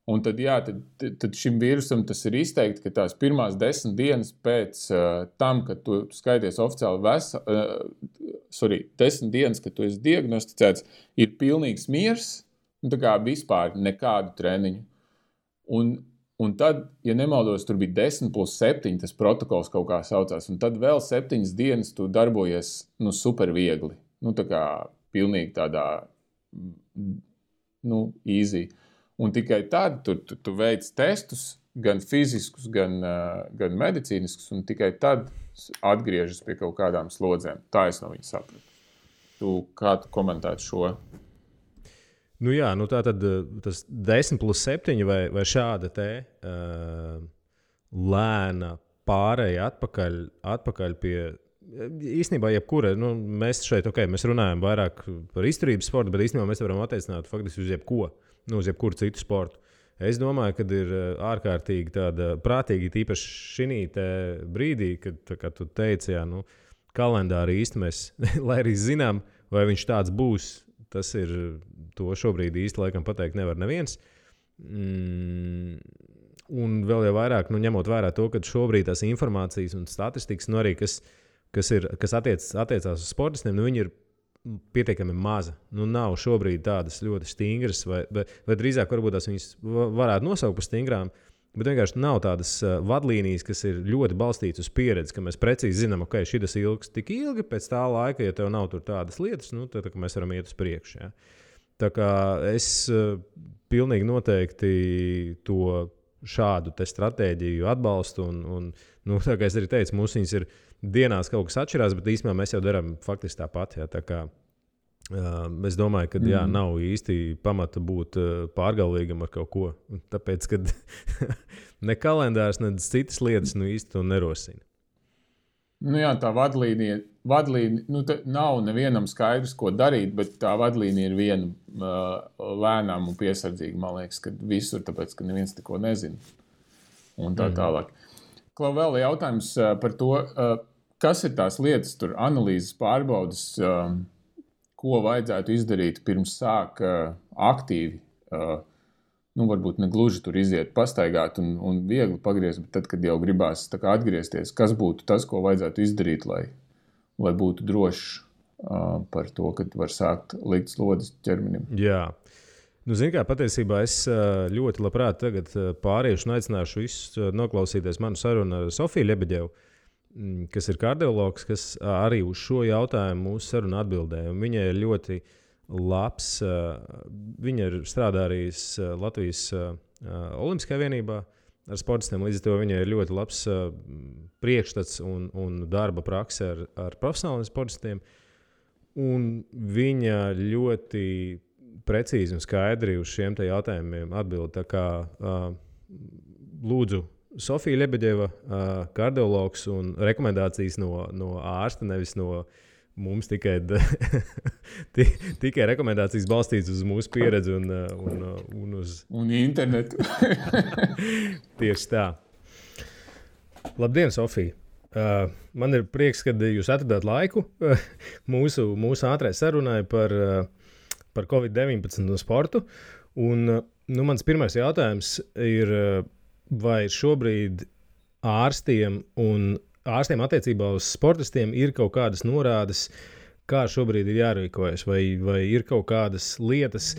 un tad, jā, tad šim vīrusam tas ir izteikti, ka tās pirmās 10 dienas pēc tam, kad tu skaities oficiāli 10 dienas, kad tu esi diagnosticēts, ir pilnīgs miers, un tā kā vispār nekādu treniņu. Un tad, ja nemaldos, tur bija 10+7, tas protokols kaut kā saucās, un tad vēl 7 dienas tu darbojies super viegli. Tā kā pilnīgi tādā easy. Un tikai tad tu veic testus, gan fiziskus, gan medicīniskus, un tikai tad atgriežas pie kaut kādām slodzēm. Tā es no viņa sapratu. Kā tu komentētu šo? Tā tad tas 10+7 vai šāda te lēna pārēja atpakaļ pie... Īstenībā jebkura, mēs šeit, mēs runājam vairāk par izturības sportu, bet īstenībā mēs varam attiecināt faktiski uz jebko, uz jebkuru citu sportu. Es domāju, ka ir ārkārtīgi tāda prātīgi, tīpaši šī brīdī, kad tu teici, kalendāri īsti mēs, lai arī zinām, vai viņš tāds būs, tas ir, to šobrīd īsti laikam pateikt nevar neviens. Un vēl jau vairāk, ņemot vērā to, ka šobrīd tās informācijas un statistikas, arī kas attiecās uz sportistiem, viņi ir pietiekami maza. Nav šobrīd tādas ļoti stingras, vai drīzāk varbūt tās viņas varētu nosaukt par stingrām, bet vienkārši nav tādas vadlīnijas, kas ir ļoti balstītas uz pieredzi, ka mēs precīzi zinām, ka šitas ilgs tik ilgi, pēc tā laika, ja tev nav tur tādas lietas, tad mēs varam iet uz priekšu. Ja? Tā kā es pilnīgi noteikti to šādu te stratēģiju atbalstu, un tā kā es arī teicu, mums viņas ir dienās kaut kas atšķirās, bet īstenībā mēs jau darām faktiski tāpat. Ja? Tā kā es domāju, ka nav īsti pamata būt pārgalvīgam ar kaut ko. Tāpēc, ka ne kalendārs, ne citas lietas īsti to nerosina. Tā vadlīnija nav nevienam skaidrs, ko darīt, bet tā vadlīnija ir viena lēnām un piesardzīga, man liekas, ka visur, tāpēc, ka neviens neko nezina. Un tā tālāk. Klau, vēl jautājums par to, kas ir tās lietas, tur analīzes pārbaudas, ko vajadzētu izdarīt pirms sāk aktīvi, varbūt ne gluži tur iziet, pastaigāt un viegli pagriezt, bet tad, kad jau gribās tā kā atgriezties, kas būtu tas, ko vajadzētu izdarīt, lai būtu drošs par to, kad var sākt likt slodzes ķermenim? Jā. Zini kā, patiesībā es ļoti labprāt tagad pāriešu un aicināšu visus noklausīties manu sarunu ar Sofiju Ļebeģevu, kas ir kardiologs, kas arī uz šo jautājumu mūsu sarunu atbildēja. Viņa ir ļoti labs, viņa ir strādājis Latvijas Olimpiskajā vienībā ar sportistiem, līdz ar to viņa ir ļoti labs priekšstats un darba prakse ar profesionāliem sportistiem. Un viņa ļoti precīzi un skaidri uz šiem jautājumiem atbild. Tā kā lūdzu Sofija Ļebeģeva, kardiologs un rekomendācijas no ārsta, nevis no mums tikai rekomendācijas balstītas uz mūsu pieredzi un uz... Un internetu. Tieši tā. Labdien, Sofija! Man ir prieks, ka jūs atradāt laiku mūsu ātrai sarunai par COVID-19 un sportu. Un, mans pirmais jautājums ir, vai šobrīd ārstiem attiecībā uz sportistiem ir kaut kādas norādes, kā šobrīd ir jārīkojas, vai ir kaut kādas lietas,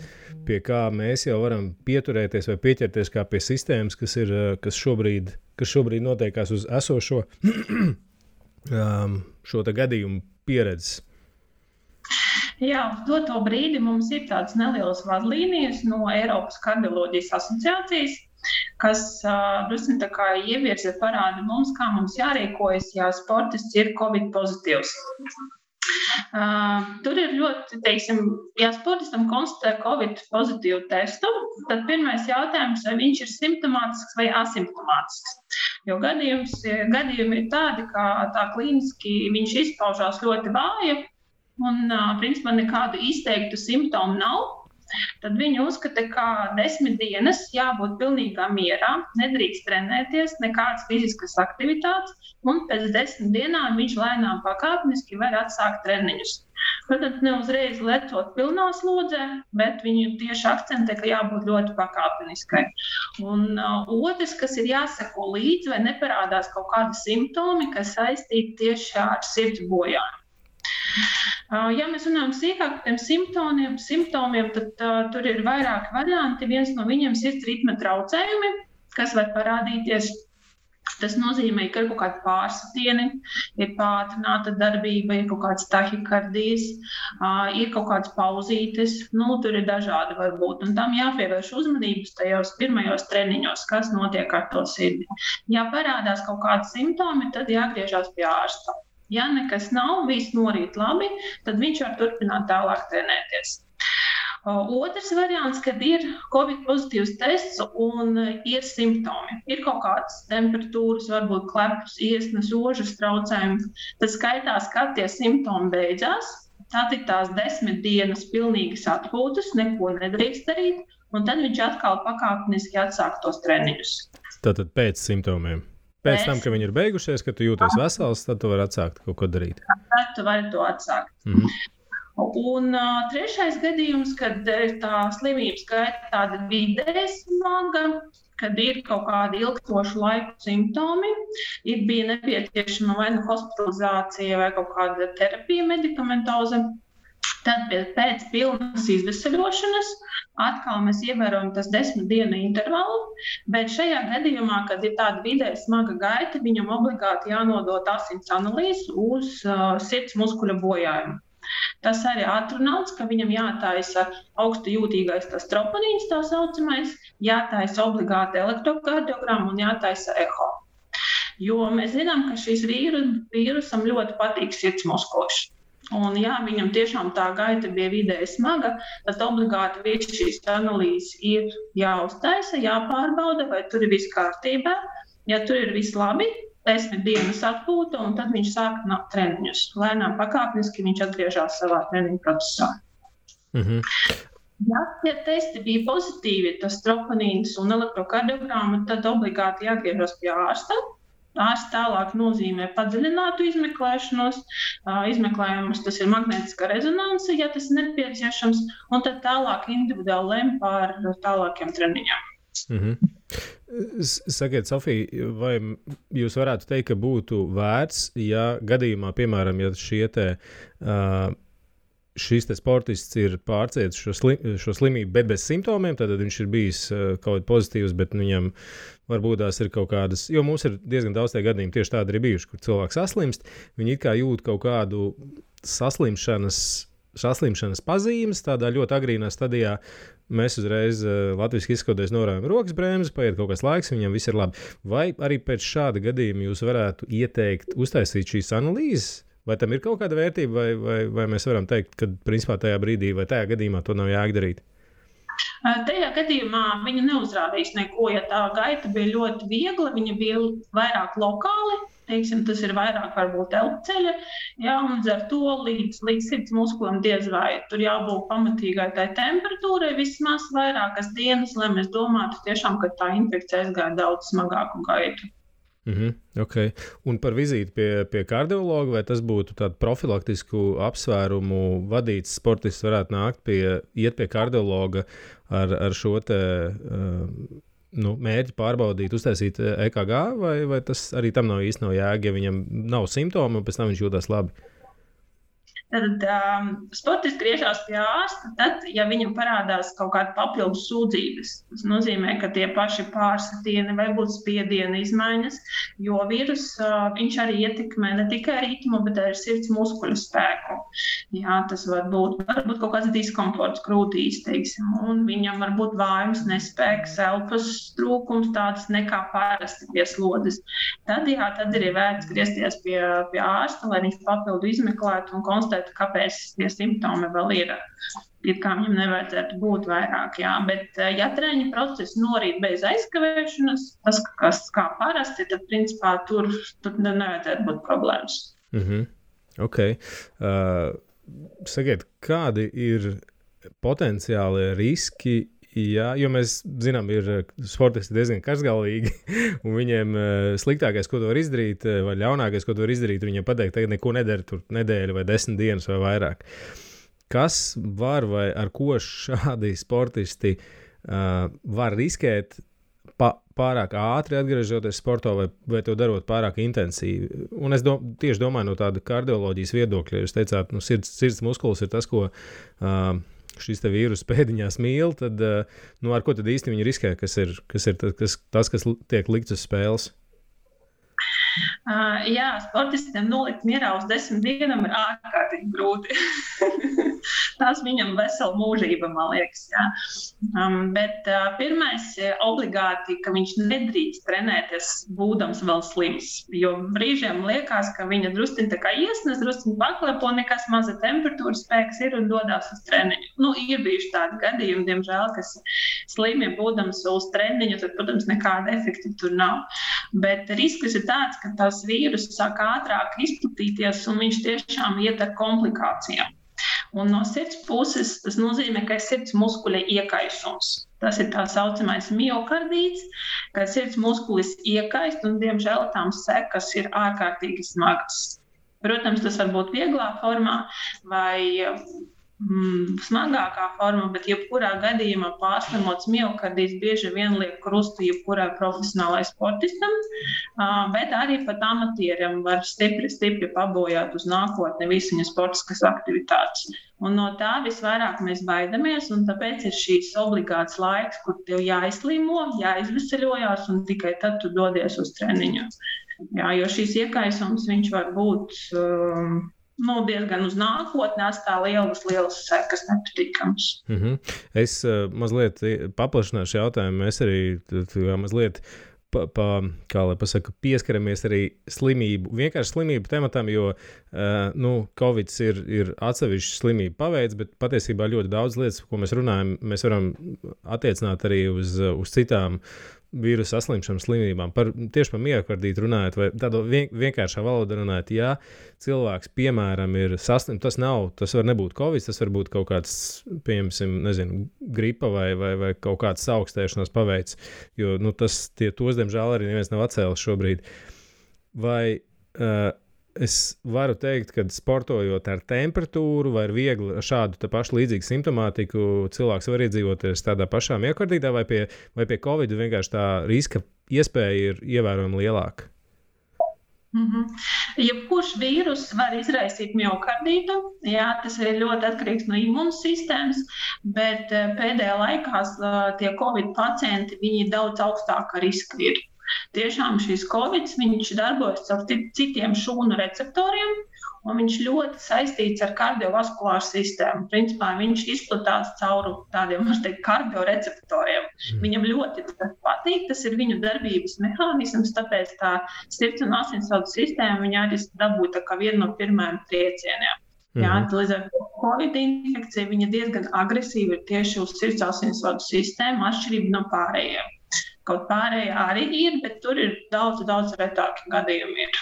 pie kā mēs jau varam pieturēties vai pieķerties kā pie sistēmas, kas šobrīd notiekās uz esošo šo gadījumu pieredzes. Jā, uz doto brīdi mums ir tādas nelielas vadlīnijas no Eiropas kardioloģijas asociācijas, kas drusku tā kā ievirza parāda mums, kā mums jārīkojas, ja sportists ir Covid pozitīvs. Tur ir ļoti, ja sportistam konstatē Covid pozitīvu testu, tad pirmais jautājums, vai viņš ir simptomātisks vai asimptomātisks. Jo gadījumi ir tādi, ka tā klīniski viņš izpaužās ļoti vāji un, principā, nekādu izteiktu simptomu nav. Tad viņi uzskata, ka 10 dienas jābūt pilnīgā mierā, nedrīkst trenēties, nekādas fiziskas aktivitātes, un pēc 10 dienām viņš lēnām pakāpeniski var atsākt treniņus. Protams, ne uzreiz lecot pilnā slodzē, bet viņi tieši akcentē, ka jābūt ļoti pakāpeniskai. Un otrs, kas ir jāseko līdzi, vai neparādās kaut kādi simptomi, kas saistīti tieši ar sirds bojājumu. Ja mēs runājam sīkāk par tiem simptomiem, tad tur ir vairāki varianti. Viens no viņiem ir sirds ritma traucējumi, kas var parādīties. Tas nozīmē, ka ir kaut kādi pārsitieni, ir pātrināta darbība, ir kaut kāds tahikardijas, ir kaut kāds pauzītes. Tur ir dažādi varbūt. Un tam jāpievērš uzmanības tajos pirmajos treniņos, kas notiek ar to sirdi. Ja parādās kaut kādi simptomi, tad jāgriežās pie ārsta. Ja nekas nav, viss norīt labi, tad viņš var turpināt tālāk trenēties. Otrs variants, kad ir Covid pozitīvs tests un ir simptomi. Ir kaut kādas temperatūras, varbūt klepus, iesnas, ožas traucējumi. Tad skaitās, kad tie simptomi beidzās. Tad ir tās 10 dienas pilnīgas atpūtas, neko nedrīkst darīt, un tad viņš atkal pakāpeniski atsāk tos treniņus. Tātad pēc simptomiem. Pēc tam, ka viņi ir beigušies, kad tu jūties vesels, tad tu vari atsākt kaut ko darīt. Tad tu vari to atsākt. Un trešais gadījums, kad tā slimības gaita tāda vidēji smaga, kad ir kaut kādi ilgstošu laiku simptomi, bija nepieciešama vai nu hospitalizācija vai kaut kāda terapija medikamentoza. Tad pēc pilnas izveseļošanas atkal mēs ievērojam tas 10 dienu intervalu, bet šajā gadījumā, kad ir tāda vidēji smaga gaita, viņam obligāti jānodot asins analīzes uz sirds muskuļa bojājumu. Tas arī atrunāts, ka viņam jātaisa augstu jūtīgais tas troponīns, tā saucamais, jātaisa obligāti elektrokardiogramma un jātaisa eho. Jo mēs zinām, ka šīs vīrusam ļoti patīk sirds muskulis. Un ja viņam tiešām tā gaita bija vidēji smaga, tad obligāti visas šīs analīzes ir jāuztaisa, jāpārbauda, vai tur ir viss kārtībā. Ja tur ir viss labi, 10 dienas atpūta, un tad viņš sāk treniņus. Lēnām pakāpeniski viņš atgriežas savā treniņu procesā. Ja tie testi bija pozitīvi, tas troponīns un elektrokardiogramma, tad obligāti jāgriežas pie ārsta. Ārsts tālāk nozīmē padziļinātu izmeklēšanos. Izmeklējumus tas ir magnētiskā rezonanse, ja tas ir nepieciešams, un tad tālāk individuāli lem par tālākiem treniņiem. Sakiet, Sofija, vai jūs varētu teikt, ka būtu vērts, ja gadījumā, piemēram, ja šis sportists ir pārcietis šo slimību, bet bez simptomiem, tad viņš ir bijis kaut kā pozitīvs, bet viņam varbūt tās ir kaut kādas, jo mums ir diezgan daudz tie gadījumi tieši tādi arī bijuši, kur cilvēks saslimst, viņi it kā jūt kaut kādu saslimšanas pazīmes, tādā ļoti agrīnā stadijā. Mēs uzreiz latviski izskatoties norādām rokas bremzi, paiet kaut kāds laiks, viņam viss ir labi. Vai arī pēc šāda gadījuma jūs varētu ieteikt uztaisīt šīs analīzes? Vai tam ir kaut kāda vērtība, vai mēs varam teikt, ka principā tajā brīdī vai tajā gadījumā to nav jādarīt? Tajā gadījumā viņa neuzrādīs neko, ja tā gaita bija ļoti viegla, viņa bija vairāk lokāli, teiksim, tas ir vairāk varbūt elpceļa, jā, un ar to līdz sirds muskulam diez vai tur jābūt pamatīgai tai temperatūrai vismaz vairākas dienas, lai mēs domātu tiešām, ka tā infekcija aizgāja daudz smagāku gaitu. Okay. Un par vizīti pie kardiologa, vai tas būtu tādu profilaktisku apsvērumu vadīts sportists varētu nākt iet pie kardiologa ar šo te mērķi pārbaudīt, uztaisīt EKG, vai tas arī tam nav īsti jēga, ja viņam nav simptomu, un pēc tam viņš jūtas labi? Tad sportists griežās pie ārsta, tad, ja viņam parādās kaut kāda papildus sūdzības, tas nozīmē, ka tie paši pārsitieni vai būt spiediena izmaiņas, jo vīrus viņš arī ietekmē ne tikai ritmu, bet arī sirds muskuļu spēku. Jā, tas var būt kaut kāds diskomforts krūtīs, teiksim, un viņam var būt vājums, nespēks, elpas trūkums, tāds nekā parasti pie slodes. Tad ir vērts griezties pie ārsta, lai viņš papildu izmeklētu un konstatētu, kāpēc tie simptomi vēl ir. It kā viņam nevajadzētu būt vairāk, jā. Bet, ja treniņa process norīt bez aizkavēšanas, tas, kas kā parasti, tad, principā, tur nevajadzētu būt problēmas. Okay. Sakiet, kādi ir potenciālie riski? Jā, jo mēs zinām, ir sportisti diezgan karsgalīgi, un viņiem sliktākais, ko tu var izdarīt, vai ļaunākais, ko tu var izdarīt, viņiem pateikt, tagad neko nedara tur nedēļu vai 10 dienas vai vairāk. Kas var vai ar ko šādi sportisti var riskēt pārāk ātri atgriežoties sportā vai to darot pārāk intensīvi? Un es tieši domāju no tāda kardioloģijas viedokļa, jūs teicāt, sirds muskulis ir tas, ko šis te vīrus pēdiņās mīl, tad ar ko tad īsti viņi riskē, kas ir tas, kas tiek likts uz spēles? Jā, sportistiem nolikt mierā uz 10 dienām ir ārkārtīgi grūti. Tās viņam vesela mūžība, man liekas. Jā. Bet pirmais obligāti, ka viņš nedrīkst trenēties būdams vēl slims. Jo brīžiem liekas, ka viņa drusciņ tā kā iesnes, drusciņ paklepo, nekas maza temperatūra spēks ir un dodās uz treniņu. Ir bijuši tādi gadījumi, diemžēl, kas slimi būdams uz treniņu, tad, protams, nekāda efekta tur nav. Bet risks ir tāds, ka tās vīrusu sāk ātrāk izplatīties un viņš tiešām iet ar komplikācijām. Un no sirds puses tas nozīmē, ka ir sirds muskuļa iekaisums. Tas ir tā saucamais miokardīts, ka sirds muskulis iekaist un, diemžēl, tām sekas ir ārkārtīgi smagas. Protams, tas var būt vieglā formā vai smagākā forma, bet jebkurā gadījumā pārslimots miokardīts bieži vien liek krustu jebkurai profesionālai sportistam, bet arī pat amatieriem var stipri pabojāt uz nākotni visu viņa sportiskas aktivitātes. Un no tā visvairāk mēs baidamies, un tāpēc ir šīs obligāts laiks, kur tev jāizslimo, jāizveseļojās, un tikai tad tu dodies uz treniņu. Jā, jo šīs iekaisums viņš var būt diezgan uz nākotni, atstā lielas sekas nepatīkams. Es mazliet paplašināšu jautājumu. Mēs arī mazliet pieskaramies arī vienkārši slimību tematam, jo Covid ir atsevišķa slimība paveids, bet patiesībā ļoti daudz lietas, ko mēs runājam, mēs varam attiecināt arī uz citām vīrusu saslimšanas slimībām. Tieši par miokardītu runājot, vai tādā vienkāršā valodā runājot, ja cilvēks, piemēram, ir saslims, tas var nebūt Covid, tas var būt kaut kāds, pieņemsim, gripa vai kaut kāds augstēšanās paveids, jo tos, diemžēl, arī neviens nav atcēlis šobrīd. Vai es varu teikt, ka sportojot ar temperatūru vai viegli šādu pašu līdzīgu simptomātiku cilvēks var iedzīvoties tādā pašā miokardītā vai pie Covid vienkārši tā riska iespēja ir ievērojami lielāka? Jebkurš vīrus var izraisīt miokardītu, jā, tas ir ļoti atkarīgs no imūnsistēmas, bet pēdējā laikā tie Covid pacienti, viņi daudz augstāka riska ir. Tiešām šīs Covid, viņš darbojas ar citiem šūnu receptoriem, un viņš ļoti saistīts ar kardiovaskulāru sistēmu. Principā viņš izplatās cauri tādiem, kardioreceptoriem. Viņam ļoti patīk, tas ir viņu darbības mehānisms, tāpēc tā sirds un asinsvadu sistēma viņa arī dabūja tā kā vienu no pirmajiem triecieniem. Jā, līdz ar to Covid infekcija viņa diezgan agresīva ir tieši uz sirdsasinsvadu sistēmu, atšķirība no pārējiem. Kaut pārējie arī ir, bet tur ir daudz retāki gadījumi ir.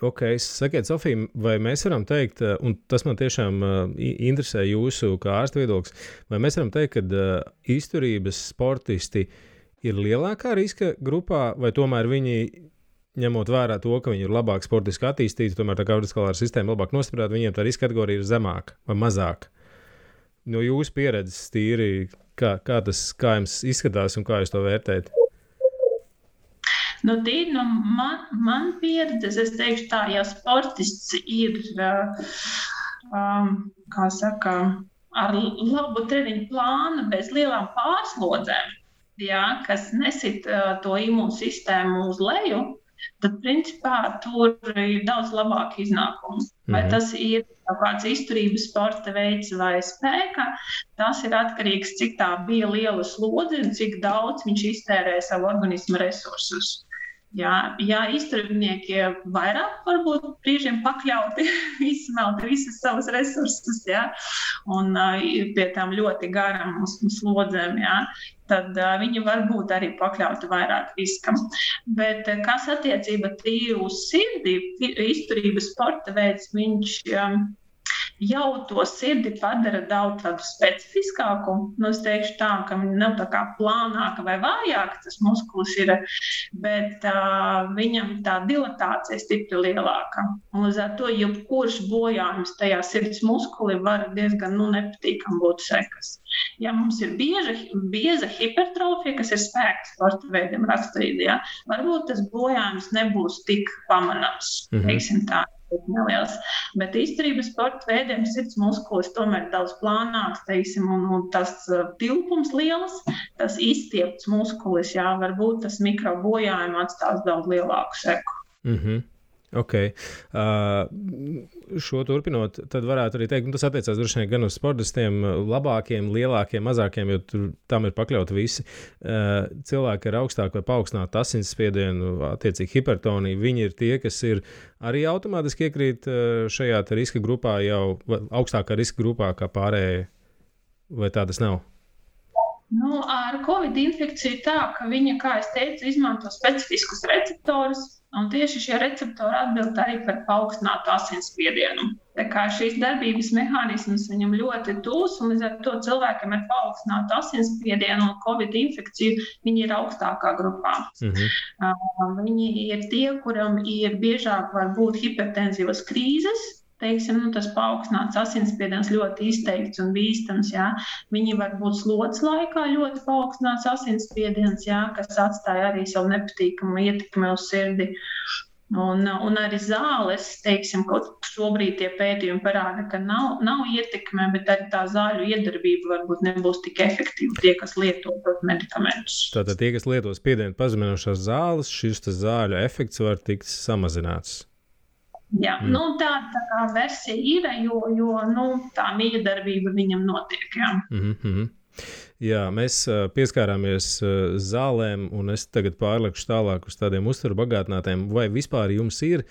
Ok, sakiet, Sofija, vai mēs varam teikt, un tas man tiešām interesē jūsu kā ārsta viedoklis, vai mēs varam teikt, ka izturības sportisti ir lielākā riska grupā, vai tomēr viņi, ņemot vērā to, ka viņi ir labāk sportiski attīstīti, tomēr tā kardiovaskulārā sistēma labāk nostiprināta, viņiem tā riska kategorija ir zemāka vai mazāka? No jūsu pieredzes tīri, kā jums izskatās un kā jūs to vērtējat? Nu, tīri no man pieredzes, es teikšu tā, ja sportists ir, kā saka, ar labu treniņu plānu, bez lielām pārslodzēm, jā, kas nesit to imūnsistēmu uz leju, tad, principā, tur ir daudz labāk iznākums. Vai tas ir kaut kāds izturības sporta veids vai spēka, tas ir atkarīgs, cik tā bija liela slodze un cik daudz viņš iztērē savu organismu resursus. Jā, izturībnieki vairāk varbūt brīžiem pakļauti, izsmelti visas savas resursus, jā, un pie tām ļoti garam slodzēm, jā, tad viņi var būt arī pakļauti vairāk riskam. Bet kas attiecība tīri uz sirdi, izturības sporta veids, viņš jau to sirdi padara daudz tādu specifiskāku. Nu, es teikšu tā, ka viņa nav tā kā plānāka vai vājāka, tas muskulis ir, bet viņam tā dilatācija stipri lielāka. Un līdz ar to, jebkurš bojājums tajā sirds muskuli var diezgan nepatīkam būt sekas. Ja mums ir bieza hipertrofija, kas ir spēka sporta veidiem raksturīga, ja, varbūt tas bojājums nebūs tik pamanāms, teiksim tā. Neliels. Bet izturības sporta veidiem sirds muskulis tomēr daudz plānāks, teiksim, un tas tilpums liels, tas izstiepts muskulis, jā, varbūt tas mikrobojājumi atstās daudz lielāku seku. Ok. Šo turpinot, tad varētu arī teikt, un tas attiecās droši vien gan uz sportistiem, labākiem, lielākiem, mazākiem, jo tam ir pakļauti visi cilvēki ar augstāku vai paaugstinātu asinsspiedienu, attiecīgi hipertoniju. Viņi ir tie, kas ir arī automātiski iekrīt šajā riska grupā jau augstākā riska grupā kā pārējie, vai tā tas nav? Nu, ar Covid infekciju tā, ka viņa, kā es teicu, izmanto specifiskus receptorus, un tieši šie receptori atbild arī par paaugstinātu asinsspiedienu. Tā kā šīs darbības mehānisms viņam ļoti tūs, un līdz ar to cilvēkiem ar paaugstinātu asinsspiedienu un Covid infekciju, viņi ir augstākā grupā. Viņi ir tie, kuram ir biežāk var būt hipertenzivas krīzes, teiksim, tas paaugstināts asinsspiediens ļoti izteikts un bīstams, jā. Viņi var būt slodzes laikā ļoti paaugstināts asinsspiediens, jā, kas atstāja arī savu nepatīkamu ietekmi uz sirdi. Un arī zāles, teiksim, kaut šobrīd tie pētījumi parāda, ka nav ietekme, bet arī tā zāļu iedarbība varbūt nebūs tik efektīva tie, kas lieto medikamentus. Tātad tie, kas lieto spiedienu pazeminošās zāles, šis zāļu efekts var tikt samazināts. Jā, tā kā versija ir, jo tā miedarbība viņam notiek, jā. Jā, mēs pieskārāmies zālēm, un es tagad pārlekšu tālāk uz tādiem uzturu bagātinātiem. Vai vispār jums ir,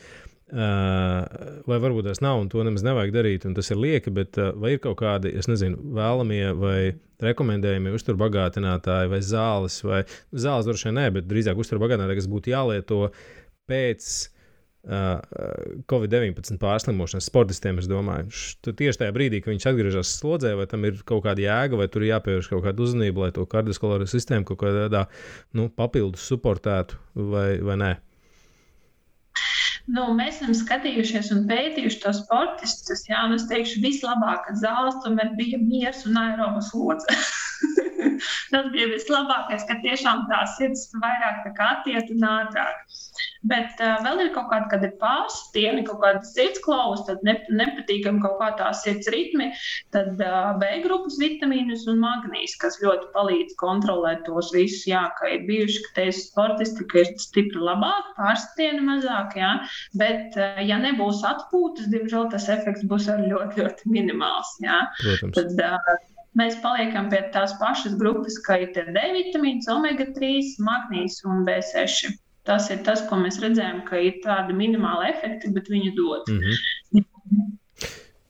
vai varbūt tas nav, un to nemaz nevajag darīt, un tas ir lieki, bet vai ir kaut kādi, es nezinu, vēlamie vai rekomendējumi uzturu bagātinātāji vai zāles droši vien nē, bet drīzāk uzturu bagātinātāji, kas būtu jālieto pēc Covid-19 pārslimošanas sportistiem, es domāju. Tieši tajā brīdī, kad viņš atgriežas slodzē, vai tam ir kaut kāda jēga, vai tur ir jāpievērš kaut kāda uzmanība, lai to kardiovaskulāro sistēmu kaut kādā papildus suportētu, vai nē? Mēs esam skatījušies un pētījuši tos sportistus, jā, un es teikšu, vislabākā zāles tomēr bija miers un aeroba slodze. Tas bija vislabākais, ka tiešām tā sirds vairāk tā kā attiet un ātrāk. Bet vēl ir kaut kāda, kad ir pārstieni, kaut kāda sirdsklaus, tad nepatīkam kaut kā tā sirds ritmi, tad B grupas vitamīnus un magnīs, kas ļoti palīdz kontrolēt tos visus, jā, ka ir bijuši, ka teisu sportisti, ka ir stipri labāk, pārstieni mazāk, jā, bet ja nebūs atpūtas, diemžēl tas efekts būs arī ļoti, ļoti minimāls, jā. Protams. Tad mēs paliekam pie tās pašas grupas, ka ir D vitamīns, omega-3, magnīs un B6. Tas ir tas, ko mēs redzējām, ka ir tādi minimāli efekti, bet viņi dod.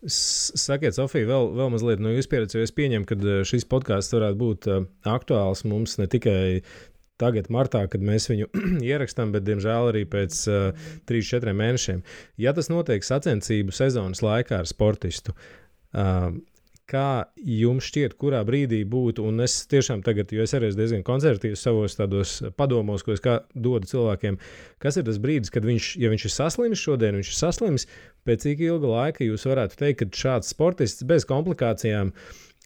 Sakiet, Sofija, vēl mazliet no jūsu pieredzes, jo es pieņemu, ka šis podcasts varētu būt aktuāls mums ne tikai tagad, martā, kad mēs viņu ierakstām, bet, diemžēl, arī pēc 3-4 mēnešiem. Ja tas notiek sacensību sezonas laikā ar sportistu, kā jums šķiet, kurā brīdī būtu, un es tiešām tagad, jo es arī diezgan konservatīvs savos tādos padomos, ko es dodu cilvēkiem, kas ir tas brīdis, kad viņš ir saslimis šodien, viņš ir saslimis, pēc cik ilga laika jūs varētu teikt, ka šāds sportists bez komplikācijām,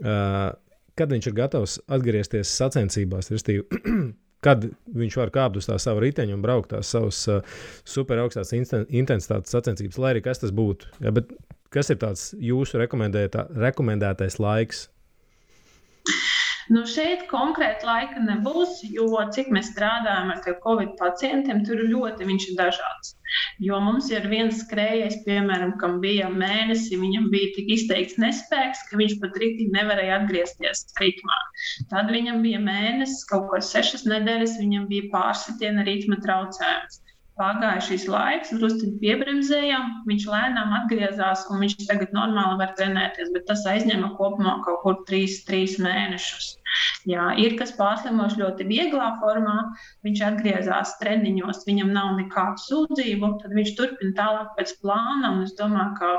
kad viņš ir gatavs atgriezties sacensībās, restīvi, kad viņš var kāpt uz tā savu riteņu un braukt tās savas super augstās intensitātes sacensības, lai arī kas tas būtu. Ja, bet kas ir tāds jūsu rekomendētais laiks? Nu, šeit konkrēti laika nebūs, jo cik mēs strādājam ar Covid pacientiem, tur viņš ir dažāds. Jo mums ir viens skrējējs, piemēram, kam bija mēnesi, viņam bija tik izteikts nespēks, ka viņš pat rītīgi nevarēja atgriezties ritmā. Tad viņam bija mēnesis, kaut kāds 6 nedēļas, viņam bija pārsitiena ritma traucējums. Pagāja šis laiks, drusciņi piebremzējām, viņš lēnām atgriezās un viņš tagad normāli var trenēties, bet tas aizņēma kopumā kaut kur 3 mēnešus. Jā, ir kas pārslimoši ļoti vieglā formā, viņš atgriezās treniņos, viņam nav nekādu sūdzību, tad viņš turpina tālāk pēc plāna un es domāju, ka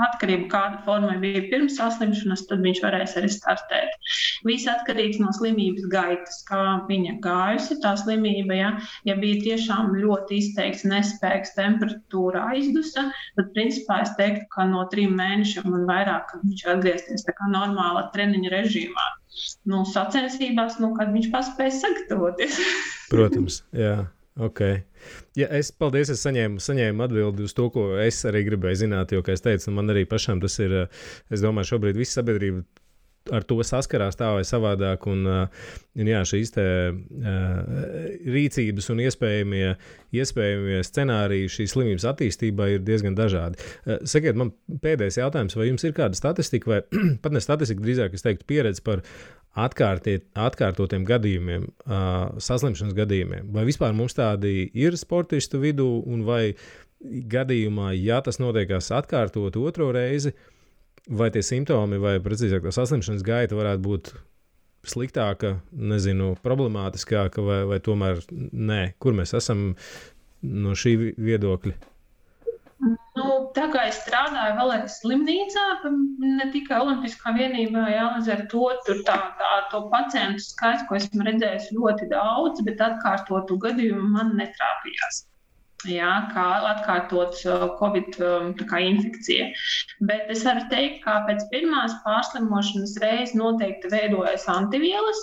atkarība, kāda forma bija pirms saslimšanas, tad viņš varēs arī startēt. Viss atkarīgs no slimības gaitas, kā viņa gājusi tā slimība. Ja bija tiešām ļoti izteikts nespēks, temperatūra aizdusa, tad principā es teiktu, ka no 3 mēnešiem un vairāk, kad viņš atgriezties tā kā normāla treniņa režīmā. Sacensībās, kad viņš paspēja sagatavoties. Protams, jā. Okay. Ja, paldies, es saņēmu atbildi uz to, ko es arī gribēju zināt, jo, kā es teicu, man arī pašam tas ir, es domāju, šobrīd visa sabiedrība ar to saskarās tā vai savādāk, un jā, šīs te rīcības un iespējamie scenāriji šīs slimības attīstībai ir diezgan dažādi. Sakiet, man pēdējais jautājums, vai jums ir kāda statistika, vai pat ne statistika, drīzāk es teiktu pieredze par atkārtotiem gadījumiem, saslimšanas gadījumiem. Vai vispār mums tādi ir sportistu vidū, un vai gadījumā, ja tas notiekās atkārtot otro reizi, vai tie simptomi, vai precīzāk tā saslimšanas gaita varētu būt sliktāka, problemātiskāka, vai tomēr nē? Kur mēs esam no šī viedokļa? Tā kā es strādāju vēl arī slimnīcā, ne tikai Olimpiskā vienībā, līdz ar to tur to pacientu skaits, ko esmu redzējis ļoti daudz, bet atkārtotu gadījumu man netrāpījās. Jā, kā atkārtot Covid infekcija. Bet es varu teikt, ka pēc pirmās pārslimošanas reizes noteikti veidojas antivielas,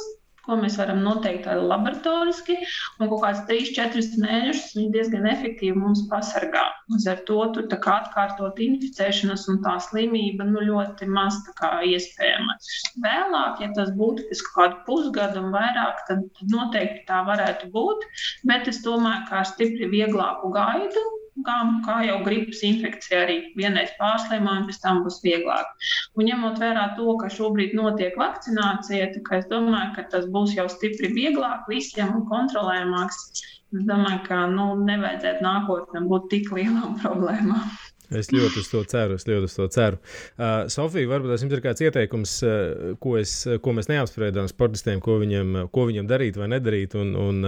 ko mēs varam noteikt laboratoriski, un kaut kāds 3-4 mēnešus viņi diezgan efektīvi mums pasargā. Līdz ar to tur atkārtot inficēšanas un tā slimība ļoti maz iespējama. Vēlāk, ja tas būtu pēc kādu pusgadu un vairāk, tad noteikti tā varētu būt, bet es domāju, ka ar stipri vieglāku gaidu, kā jau gripas infekcija arī vienreiz pārslimojam, pēc tam būs vieglāk. Un ņemot vērā to, ka šobrīd notiek vakcinācija, tā kā es domāju, ka tas būs jau stipri vieglāk visiem un kontrolējamāks. Es domāju, ka nevajadzētu nākotnē būt tik lielām problēmām. Es ļoti uz to ceru. Sofija, varbūt jums ir kāds ieteikums, ko mēs neapspriedām sportistiem, ko viņam darīt vai nedarīt, un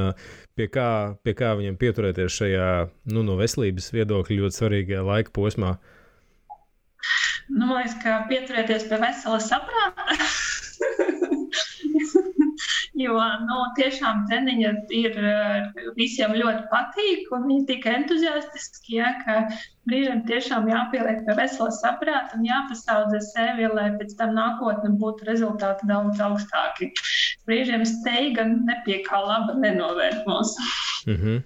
pie kā viņam pieturēties šajā no veselības viedokļa ļoti svarīgajā laika posmā? Man liekas, ka pieturēties pie vesela saprāta. Jo tiešām treniņi ir visiem ļoti patīk, un viņi tik entuziastiski, ka brīžiem tiešām jāpieliek pie vesela saprāta un jāpasaudzē sevi, lai pēc tam nākotnē būtu rezultāti daudz augstāki. Brīžiem steiga nepie kā laba nenovērt mūs. Mm-hmm.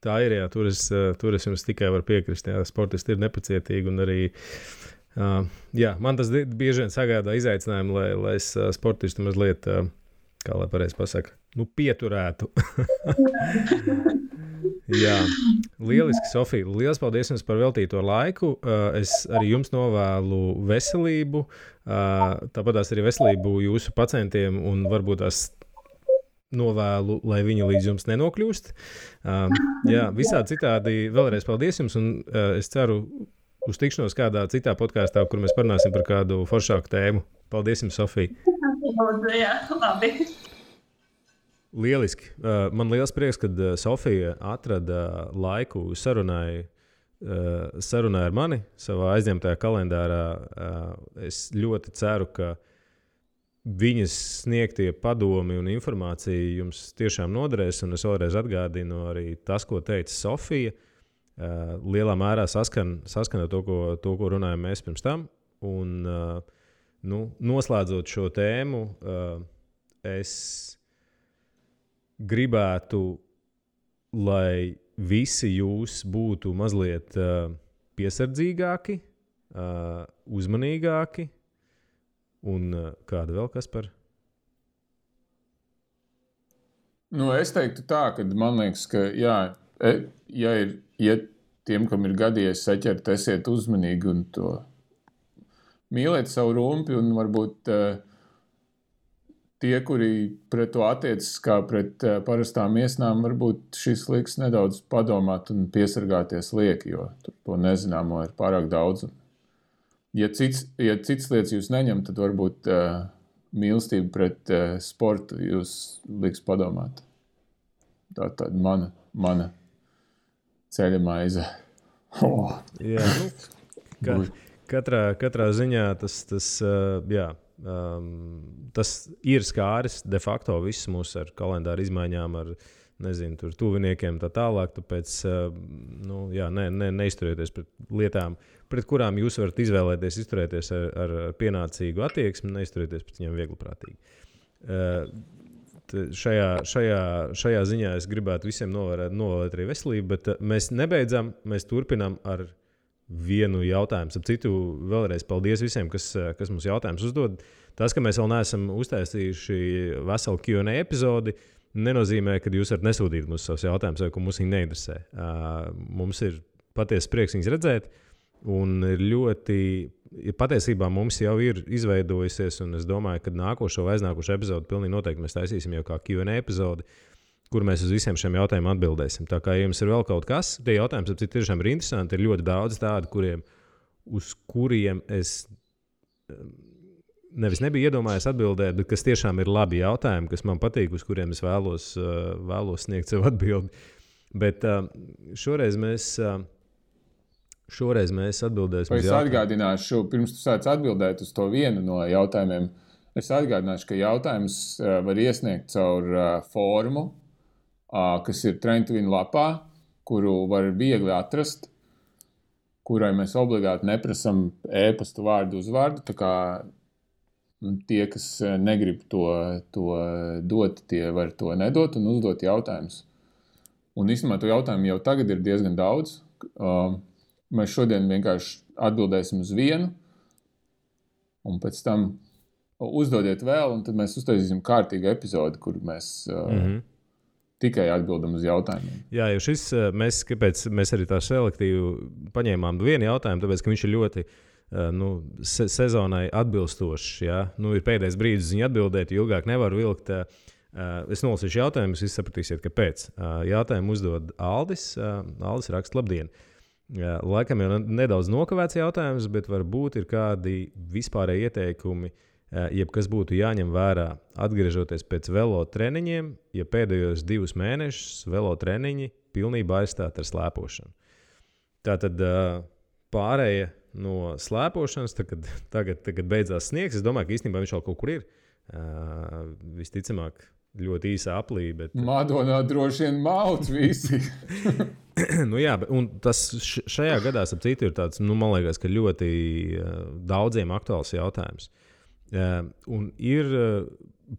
Tā ir, jā, tur es jums tikai varu piekrist, jā, sportisti ir nepacietīgi un arī, jā, man tas bieži vien sagādā izaicinājumu, lai es sportistu mazliet, kā lai pareizi pasaka, pieturētu. Jā, lieliski, Sofija. Liels paldies jums par veltīto laiku. Es arī jums novēlu veselību, tāpatās arī veselību jūsu pacientiem un varbūt tās novēlu, lai viņi līdz jums nenokļūst. Jā, visādi citādi vēlreiz paldies jums un es ceru Uz tikšanos kādā citā podkāstā, kur mēs parunāsim par kādu foršāku tēmu. Paldies jums, Sofija! Jā, labi. Lieliski. Man liels prieks, ka Sofija atrada laiku sarunai ar mani savā aizņemtajā kalendārā. Es ļoti ceru, ka viņas sniegtie padomi un informācija jums tiešām noderēs. Un es vēlreiz atgādinu arī tas, ko teica Sofija. Lielā mērā saskana to, ko runājam mēs pirms tam. Un, noslēdzot šo tēmu, es gribētu, lai visi jūs būtu mazliet piesardzīgāki, uzmanīgāki un kāda vēl kas par? Es teiktu tā, ka man liekas, ka ja tiem, kam ir gadījies saķert, esiet uzmanīgi un to mīliet savu rumpi un varbūt tie, kuri pret to attiecas kā pret parastām iesnām, varbūt šis liks nedaudz padomāt un piesargāties lieki, jo to nezināmo ir pārāk daudz. Ja cits lietas jūs neņem, tad varbūt mīlestība pret sportu jūs liks padomāt. Tā mana ceļa maize. Jā, katrā ziņā tas ir skāris de facto visus mūs ar kalendāru izmaiņām, ar tuviniekiem tā tālāk. Tāpēc neizturieties pret lietām, pret kurām jūs varat izvēlēties izturēties ar pienācīgu attieksmi, neizturieties pret viņiem viegliprātīgi. Šajā ziņā es gribētu visiem novēlēt arī veselību, bet mēs nebeidzam, mēs turpinām ar vienu jautājumu. Ap citu, vēlreiz paldies visiem, kas mums jautājumus uzdod. Tas, ka mēs vēl neesam uztaisījuši veselu Q&A epizodi, nenozīmē, ka jūs varat nesūtīt mums savus jautājumus, vai ko mums viņi neinteresē. Mums ir patiesi prieks viņus redzēt, un patiesībā mums jau ir izveidojusies, un es domāju, ka nākošo vai aiznākošo epizodi pilnīgi noteikti mēs taisīsim jau kā Q&A epizodi, kur mēs uz visiem šiem jautājumiem atbildēsim. Tā kā jums ir vēl kaut kas, tie jautājumi tiešām ir interesanti, ir ļoti daudz tādi, uz kuriem es nevis nebiju iedomājies atbildēt, bet kas tiešām ir labi jautājumi, kas man patīk, uz kuriem es vēlos sniegt sev atbildi. Bet šoreiz mēs atbildēsim. Es atgādināšu, pirms tu sāc atbildēt uz to vienu no jautājumiem, es atgādināšu, ka jautājums var iesniegt caur formu, kas ir Trend to Win lapā, kuru var viegli atrast, kurai mēs obligāti neprasam e-pastu vārdu uz vārdu. Tā kā tie, kas negrib to dot, tie var to nedot un uzdot jautājumus. Un īstenībā to jautājumu jau tagad ir diezgan daudz. Mēs šodien vienkārši atbildēsim uz vienu, un pēc tam uzdodiet vēl, un tad mēs uztaisīsim kārtīgu epizodi, kur mēs tikai atbildam uz jautājumiem. Jā, jo kāpēc mēs arī tā selektīvi paņēmām vienu jautājumu, tāpēc, ka viņš ir ļoti sezonai atbilstošs. Ja? Ir pēdējais brīdis viņu atbildēt, jo ilgāk nevar vilkt. Es nolasīšu jautājumus, jūs sapratīsiet, kāpēc. Jautājumu uzdod Aldis. Aldis raksta: labdien! Laikam jau nedaudz nokavēts jautājums, bet varbūt ir kādi vispārēji ieteikumi, jebkas būtu jāņem vērā, atgriežoties pēc velo treniņiem, ja pēdējos 2 mēnešus velo treniņi pilnībā aizstāt ar slēpošanu. Tātad pārēja no slēpošanas, tagad beidzās sniegs. Es domāju, ka īstenībā viņš vēl kaut kur ir. Visticamāk, ļoti īsa aplī. Bet... Madonā droši vien mauc visi. Jā, un tas šajā gadā, ap citu, ir tāds, man liekas, ka ļoti daudziem aktuāls jautājums. Un ir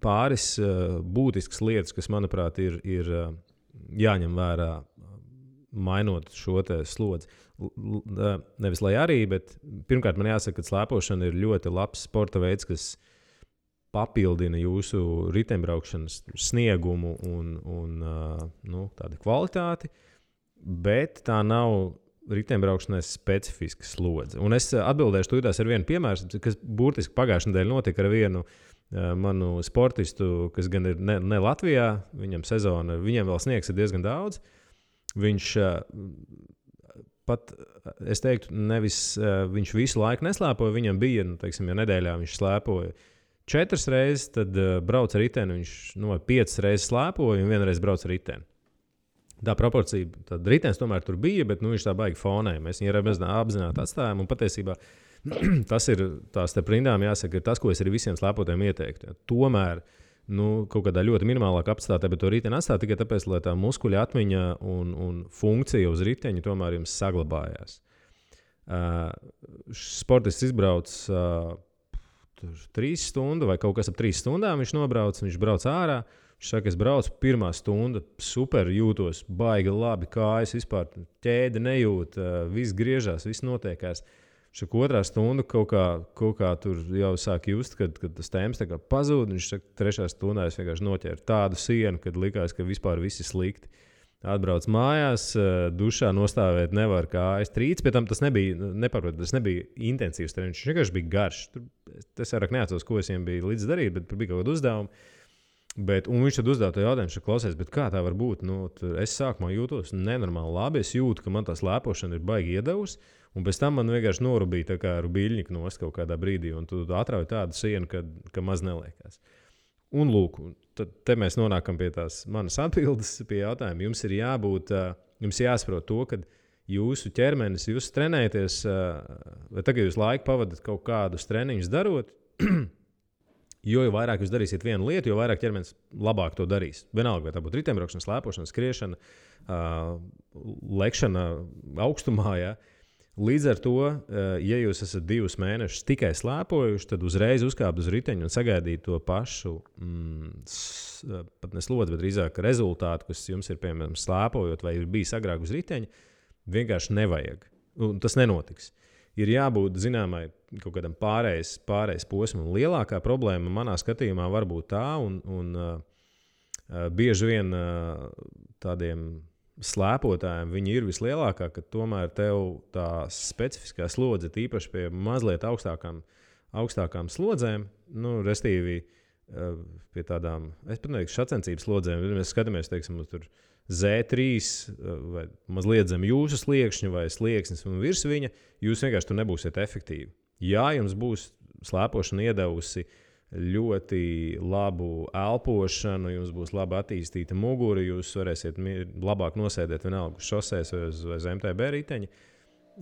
pāris būtiskas lietas, kas, manuprāt, ir jāņem vērā, mainot šo slodzi. Nevis lai arī, bet pirmkārt man jāsaka, ka slēpošana ir ļoti labs sporta veids, kas papildina jūsu riteņbraukšanas sniegumu un tādu kvalitāti, bet tā nav riteņbraukšanai specifiska slodze. Un es atbildēšu tūdās ar vienu piemēru, kas burtiski pagājušajā nedēļā notika ar vienu manu sportistu, kas gan ir ne Latvijā, viņam sezona, viņam vēl sniegs ir diezgan daudz. Viņš pat, es teiktu, nevis viņš visu laiku neslēpoja, viņam bija, teiksim, ja nedēļā viņš slēpoja 4 reizes, tad brauc ar riteni, viņš 5 reizes slēpoja un 1 reizi brauc ar riteni. Tā proporcija, tad ritenis tomēr tur bija, bet viņš tā baigi fonē. Mēs viņu apzināti atstājām, un patiesībā tas ir tās te prindām jāsaka, ir tas, ko es arī visiem slēpotiem ieteiktu. Ja. Tomēr, kaut kādā ļoti minimālā kapacitātē, bet to riteni atstāt tikai tāpēc, lai tā muskuļa atmiņa un funkcija uz riteņa tomēr jums saglabājās. Sportists izbrauc 3 stundu vai kaut kas ap 3 stundām viņš nobrauc, viņš brauc ārā. Viņš saka, es braucu, pirmā stunda, super jūtos, baigi labi, kājas vispār ķēde nejūt, viss griežās, viss notiekās. Šak otrā stunda kaut kā tur jau sāk just, kad tas temps tā kā pazūd. Viņš saka, 3. stundā es vienkārši noķēru tādu sienu, kad likās, ka vispār viss ir slikti. Atbrauc mājās, dušā nostāvēt nevar kājas trīc, pēc tam tas nebija intensīvs treniņš, viņš vienkārši bija garš. Es vairāk neatceros, ko es viņiem biju līdz darīt, bet bija kaut kāda uzdevuma. Un viņš tad uzdeva to jautājumu, ka klausies, kā tā var būt? Es sākumā jūtos nenormāli labi, es jūtu, ka man tā slēpošana ir baigi iedavusi, un pēc tam man vienkārši norubīja tā kā rubīļņika nost kaut kādā brīdī, un tu atrauj tādu sienu, ka maz neliekās. Un lūk, te mēs nonākam pie tās manas atbildes pie jautājuma. Jums ir jābūt, jums jāsaprot to, ka jūsu ķermenis, jūs trenēties, vai tagad jūs laiku pavadat kaut kādus treniņus darot, jo vairāk jūs darīsiet vienu lietu, jo vairāk ķermenis labāk to darīs. Vienalga, vai tā būtu riteņbraukšana, slēpošana, skriešana, lekšana augstumā. Ja? Līdz ar to, ja jūs esat 2 mēnešus tikai slēpojuši, tad uzreiz uzkāpt uz riteņu un sagaidīt to pašu, pat ne slodzi, bet drīzāk rezultātu, kas jums ir, piemēram, slēpojot vai ir bijis agrāk uz riteņa, vienkārši nevajag. Un tas nenotiks. Ir jābūt zināmai kaut kādam pārējais posmam. Lielākā problēma manā skatījumā var būt tā, un bieži vien tādiem slēpotājiem viņi ir vislielākā, ka tomēr tev tā specifiskā slodze, tīpaši pie mazliet augstākām slodzēm, restīvi pie tādām, es pat neteiktu, sacensības slodzēm, ja mēs skatāmies, teiksim, uz tur Z3 vai mazliet zem jūsu sliekšņa vai slieksnis un virs viņa, jūs vienkārši tur nebūsiet efektīvi. Jā, jums būs slēpošana iedevusi ļoti labu elpošanu, jums būs labi attīstīta mugura, jūs varēsiet labāk nosēdēt vienalga uz šosēs vai uz MTB riteņa,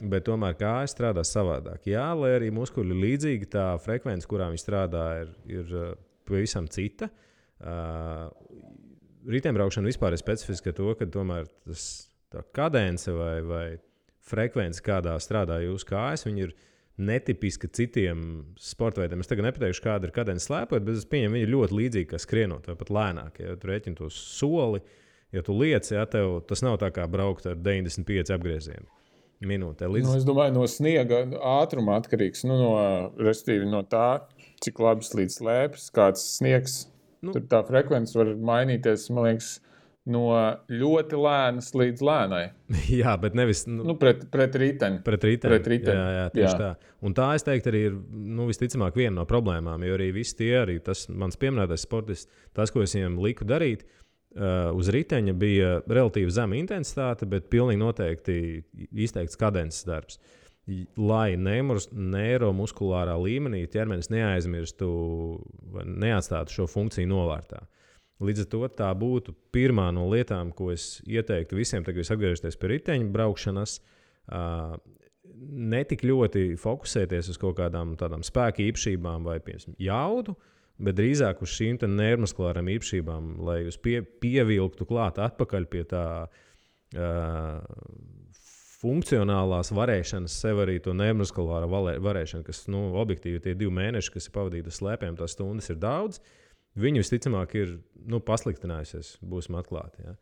bet tomēr kājas strādā savādāk. Jā, lai arī muskuļi līdzīgi, tā frekvence, kurā viņi strādā, ir pavisam cita. Riteņbraukšana vispār ir specifiska to, ka tomēr tā kadence vai frekvence, kādā strādā jūsu kājas, viņi ir netipiska citiem sporta veidiem. Es tagad nepateikšu, kāda ir kadence slēpot, bet es pieņemu, viņi ir ļoti līdzīgi kā skrienot vai pat lēnāk. Ja tu rēķini to soli, ja tu liec, ja tev tas nav tā kā braukt ar 95 apgriezienu minūtē. Es domāju, no sniega ātruma atkarīgs, restīvi no tā, cik labi slīd slēpes, kāds sniegs. Tur tā frekvence var mainīties, man liekas, no ļoti lēnas līdz lēnai. Jā, bet nevis pret riteni. Pret riteni. Jā, tieši tā. Un tā, es teiktu, arī ir visticamāk viena no problēmām, jo arī visi tie, arī tas mans pieminētais sportists, tas, ko es viņiem liku darīt, uz riteņa bija relatīvi zema intensitāte, bet pilnīgi noteikti izteikts kadences darbs. Lai neiromuskulārā līmenī ķermenis neaizmirstu vai neatstātu šo funkciju novārtā. Līdz ar to tā būtu pirmā no lietām, ko es ieteiktu visiem, kad jūs atgriežaties pie riteņa braukšanas, netik ļoti fokusēties uz kaut kādām tādām spēka īpašībām vai jaudu, bet drīzāk uz šīm neiromuskulārām īpašībām, lai jūs pievilktu klāt atpakaļ pie tā funkcionālās varēšanas, sev arī to neiromuskulāro varēšanu, kas objektīvi tie 2 mēneši, kas ir pavadīti uz slēpēm, tās stundas ir daudz. Viņi visticamāk ir pasliktinājusies, būsim atklāti. Ja.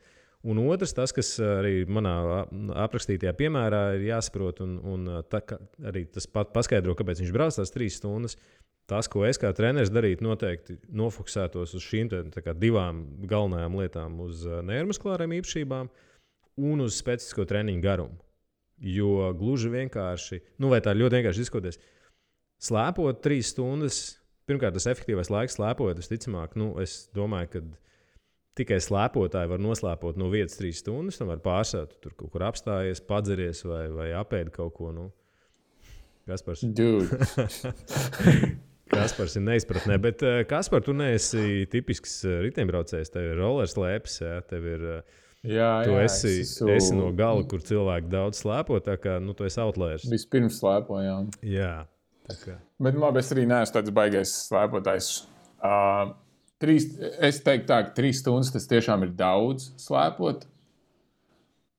Un otrs, tas, kas arī manā aprakstītajā piemērā ir jāsaprot, un arī tas paskaidro, kāpēc viņš brauc tās 3 stundas. Tas, ko es kā treneris darītu, noteikti nofokusētos uz šīm 2 galvenajām lietām, uz neiromuskulārām īpašībām un uz specifisko treniņu garumu. Jo gluži vienkārši, vai tā ļoti vienkārši izskoties, slēpot 3 stundas, pirmkārt, tas efektīvais laiks slēpojot, visticamāk, es domāju, ka tikai slēpotāji var noslēpot no vietas 3 stundas, un var pārsēt, tur kaut kur apstājies, padzeries vai apēd kaut ko. Nu. Kaspars. Kaspars ir neizpratnē, bet Kaspar, tu neesi tipisks riteņbraucējs, tev ir rollerslēpes, tev ir... Tu esi no gala, kur cilvēki daudz slēpo, tā kā tu esi outliers. Vispirms slēpojām. Jā. Tā kā. Bet labi, es arī neesmu tāds baigais slēpotājs. Es teiktu tā, ka 3 stundas tas tiešām ir daudz slēpot,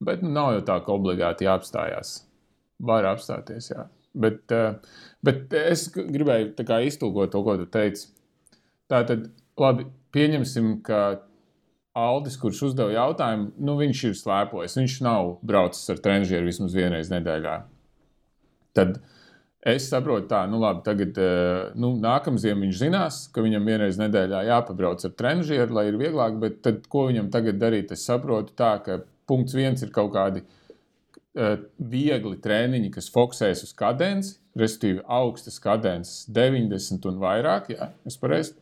bet nav jau tā, ka obligāti jāapstājās. Var apstāties, jā. Bet es gribēju tā kā iztulkot to, ko tu teici. Tātad, labi, pieņemsim, ka Aldis, kurš uzdeva jautājumu, viņš ir slēpojis. Viņš nav braucis ar trenižieru vismaz vienreiz nedēļā. Tad es saprotu tā, labi, tagad nākamziem viņš zinās, ka viņam vienreiz nedēļā jāpabrauc ar trenižieru, lai ir vieglāk, bet tad, ko viņam tagad darīt? Es saprotu tā, ka punkts 1 ir kaut kādi viegli treniņi, kas fokusējas uz kadenci, respektīvi augstas kadences 90 un vairāk, jā, es pareizi.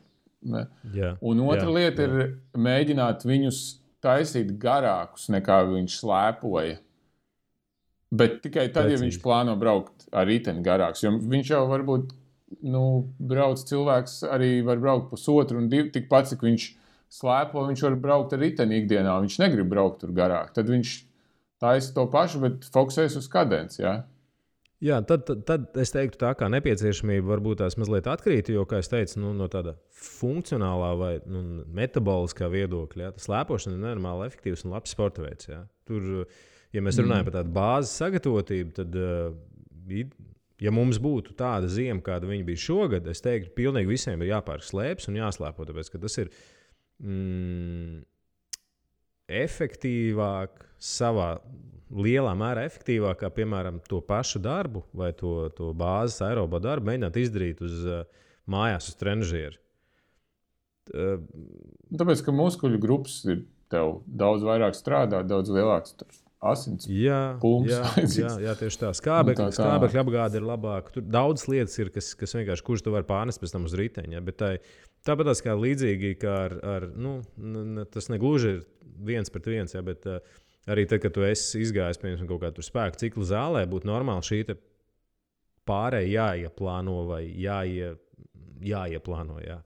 Un otra lieta ir mēģināt viņus taisīt garākus, nekā viņš slēpoja. Bet tikai tad, ja viņš plāno braukt ar riteni garāks. Jo viņš jau varbūt, brauc cilvēks arī var braukt 1,5 un 2, tikpat, cik viņš slēpo, viņš var braukt ar riteni ikdienā. Viņš negrib braukt tur garāk. Tad viņš taisa to pašu, bet fokusēs uz kadenci, jā. Jā, tad es teiktu tā, kā nepieciešamība varbūt tās mazliet atkrīt, jo, kā es teicu, no tāda funkcionālā vai metaboliskā viedokļa, tas slēpošana ir nenormāli efektīvs un labs sporta veids. Jā. Tur, ja mēs runājam par tādu bāzes sagatavotību, tad, ja mums būtu tāda ziema, kāda viņa bija šogad, es teiktu, pilnīgi visiem ir jāpērk slēpes un jāslēpo, tāpēc, ka tas ir efektīvāk savā lielā mērā efektīvāk, kā, piemēram, to pašu darbu vai to bāzes aerobo darbu mēģināt izdarīt mājās uz trenižieru. Tāpēc, ka muskuļu grupas ir tev daudz vairāk strādā, daudz lielāks asins pulms. Jā, tieši tā. Skābekļa apgāde ir labāka. Tur daudz lietas ir, kas vienkārši, kurš tu var pārnest pēc tam uz riteņa. Ja? Bet tāpat kā līdzīgi, kā ar tas negluži ir 1-1, ja? Bet arī tad, kad tu esi izgājis piemēram kaut kādu spēku ciklu zālē, būtu normāli šī pārēja jāieplāno vai jāieplāno. Jā.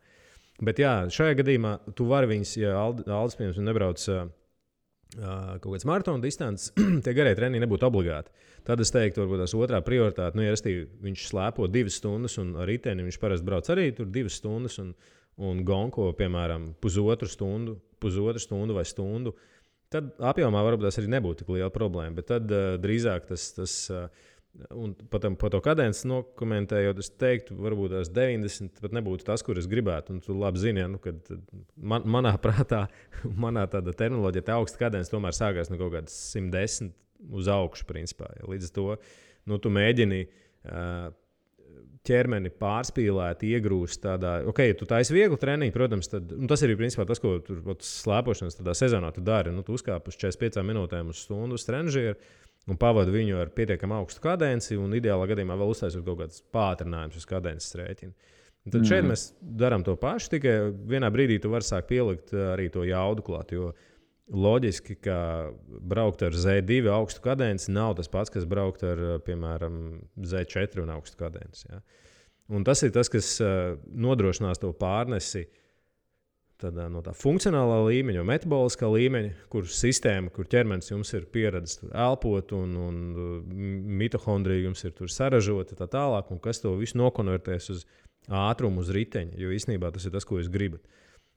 Bet jā, šajā gadījumā tu vari viņus, ja Aldis piemēram nebrauc kaut kāds maratona distances, tie garie treniņi nebūtu obligāti. Tad es teiktu, varbūt tās otrā prioritāte, ja viņš slēpo 2 stundas un ar riteni viņš parasti brauc arī tur 2 stundas un gonko, piemēram, pusotru stundu vai stundu. Tad apjomā varbūt tas arī nebūtu tik liela problēma, bet tad drīzāk tas un par to kadenci nokomentējot, es teiktu, varbūt tās 90 pat nebūtu tas, kur es gribētu. Un tu labi zini, kad manā prātā, manā tāda terminoloģija, tā augsta kadence tomēr sākās no kaut kādas 110 uz augšu, principā. Ja. Līdz ar to tu mēģini ķermeni pārspīlēt, iegrūst tādā, ja tu taisi vieglu treniņu, protams, tad, tas ir principā tas, ko tur slēpošanas tādā sezonā tu dari. Tu uzkāp uz 45 minūtēm uz stundu uz trenižieru un pavadi viņu ar pietiekami augstu kadenci un ideālā gadījumā vēl uztaisot kaut kādas pātrinājumus uz kadences rēķinu. Tad šeit mēs darām to pašu, tikai vienā brīdī tu vari sākt pielikt arī to jaudu klāt, jo loģiski, ka braukt ar Z2 augstu kadenci nav tas pats, kas braukt ar, piemēram, Z4 un augstu kadenci. Ja? Un tas ir tas, kas nodrošinās to pārnesi no tā funkcionālā līmeņa, metaboliskā līmeņa, kur sistēma, kur ķermenis jums ir pieredzis elpot un mitohondrija jums ir tur saražota tā tālāk, un kas to visu nokonvertēs uz ātrumu, uz riteņa, jo īstenībā tas ir tas, ko jūs gribat.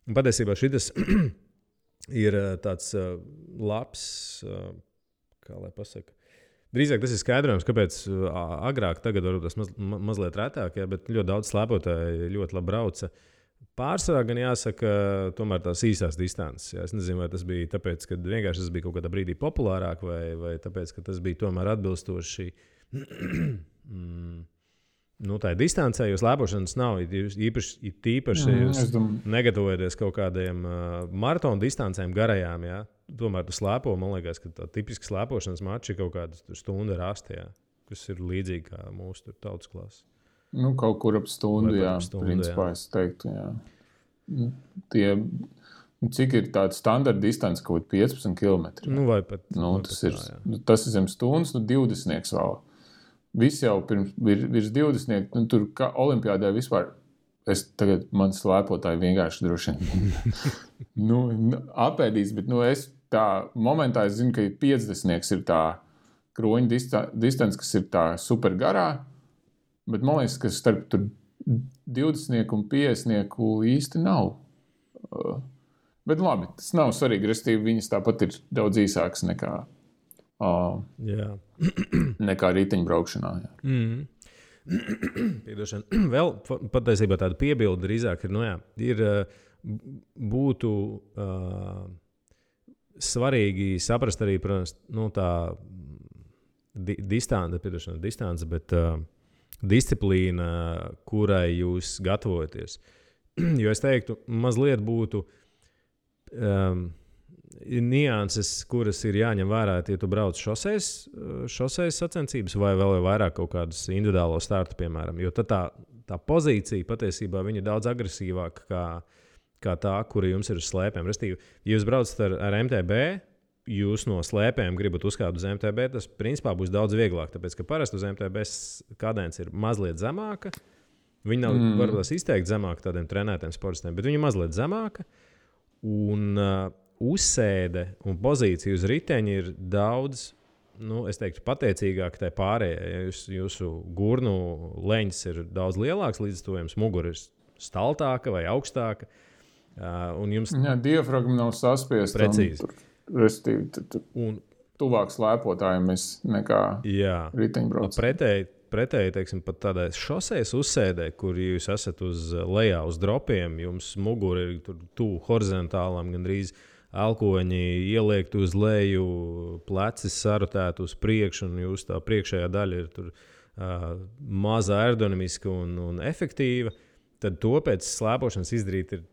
Un patiesībā šitas ir tāds labs, kā lai pasaka. Drīzāk tas ir skaidrojums, kāpēc agrāk, tagad varbūt tas mazliet retāk, ja, bet ļoti daudz slēpotāji ļoti labi brauca. Pārsvarā gan jāsaka, tomēr tās īsās distances. Ja. Es nezinu, vai tas bija tāpēc, ka vienkārši tas bija kaut kādā brīdī populārāk, vai tāpēc, ka tas bija tomēr atbilstoši tā distancē, jo slēpošanas nav. Īpaši jūs negatavojaties kaut kādiem maratona distancēm garajām. Ja? Tomēr tu slēpo, man liekas, ka tā tipiski slēpošanas mači ir kaut kāda stunda rasta, ja? Kas ir līdzīgi kā mūsu tautas klasa. Kaut kur ap stundu, jā. Principā es teiktu, jā. Tie Cik ir tāda standarta distance, kaut 15 km? Vai pat. Tas ir zem stundas, 20 vēl. Visi jau virs 20, tur kā olimpiādē vispār. Man slēpotāji vienkārši droši vien apēdīs, bet es tā momentā es zinu, ka 50 ir tā kroņa distance, kas ir tā super garā, bet man liekas, ka starp tur 20 un 50 īsti nav. Bet labi, tas nav svarīgi, restīvi viņas tāpat ir daudz īsākas nekā riteņbraukšanā. Piedošana. Vēl patiesībā tāda piebilde drīzāk ir, būtu svarīgi saprast arī, protams, tā distance, bet disciplīna, kurai jūs gatavojaties. Jo es teiktu, mazliet būtu nianses, kuras ir jāņem vērā, ja tu brauc šoseis sacensības vai vēl vairāk kaut kādus individuālo startu, piemēram. Jo tad tā pozīcija patiesībā viņa ir daudz agresīvāka kā tā, kura jums ir uz slēpēm. Restīvi, ja jūs braucat ar MTB, jūs no slēpēm gribat uzkāpt uz MTB, tas principā būs daudz vieglāk, tāpēc, ka parasti uz MTB kadence ir mazliet zemāka. Viņa nav varbūt izteikti zemāka tādiem trenētiem sportistiem, bet viņa ir mazliet zemāka. Un uzsēde un pozīcija uz riteņa ir daudz, es teiktu, pateicīgāk tai pārējai. Ja jūsu gurnu leņķis ir daudz lielāks, līdz to jums mugura ir staltāka vai augstāka. Un jums... diafragma nav saspiesta. Precīzi. Un tuvāk slēpotājiem nekā riteņbraucējiem. Pretēji, teiksim, pat tādai šosejas uzsēdē, kur jūs esat uz lejā uz dropiem, jums mugura ir tuvu horizontālām, gandrīz elkoņi ieliekti uz leju, pleci sarutēti uz priekšu, un jūs tā priekšējā daļa ir tur maza aerodinamiska un efektīva, tad to pēc slēpošanas izdarīt ir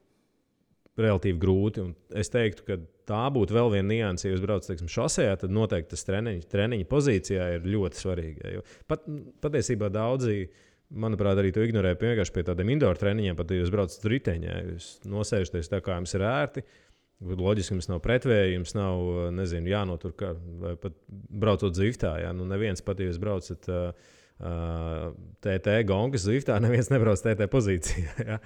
relatīvi grūti. Un es teiktu, ka tā būtu vēl viena nianse, ja jūs braucat, teiksim, šosejā, tad noteikti tas treniņa pozīcijā ir ļoti svarīgi. Jo patiesībā daudzi, manuprāt, arī to ignorē vienkārši pie tādiem indoor treniņiem, pat ja jūs braucat riteņā, jūs nosēžaties tā, kā jums ir ērti. Loģiski, jums nav pretvēja, jums nav, jānotur, vai pat braucot Zviftā. Neviens pat, ja jūs braucat TT gongas Zviftā, neviens nebrauc TT pozīcijā.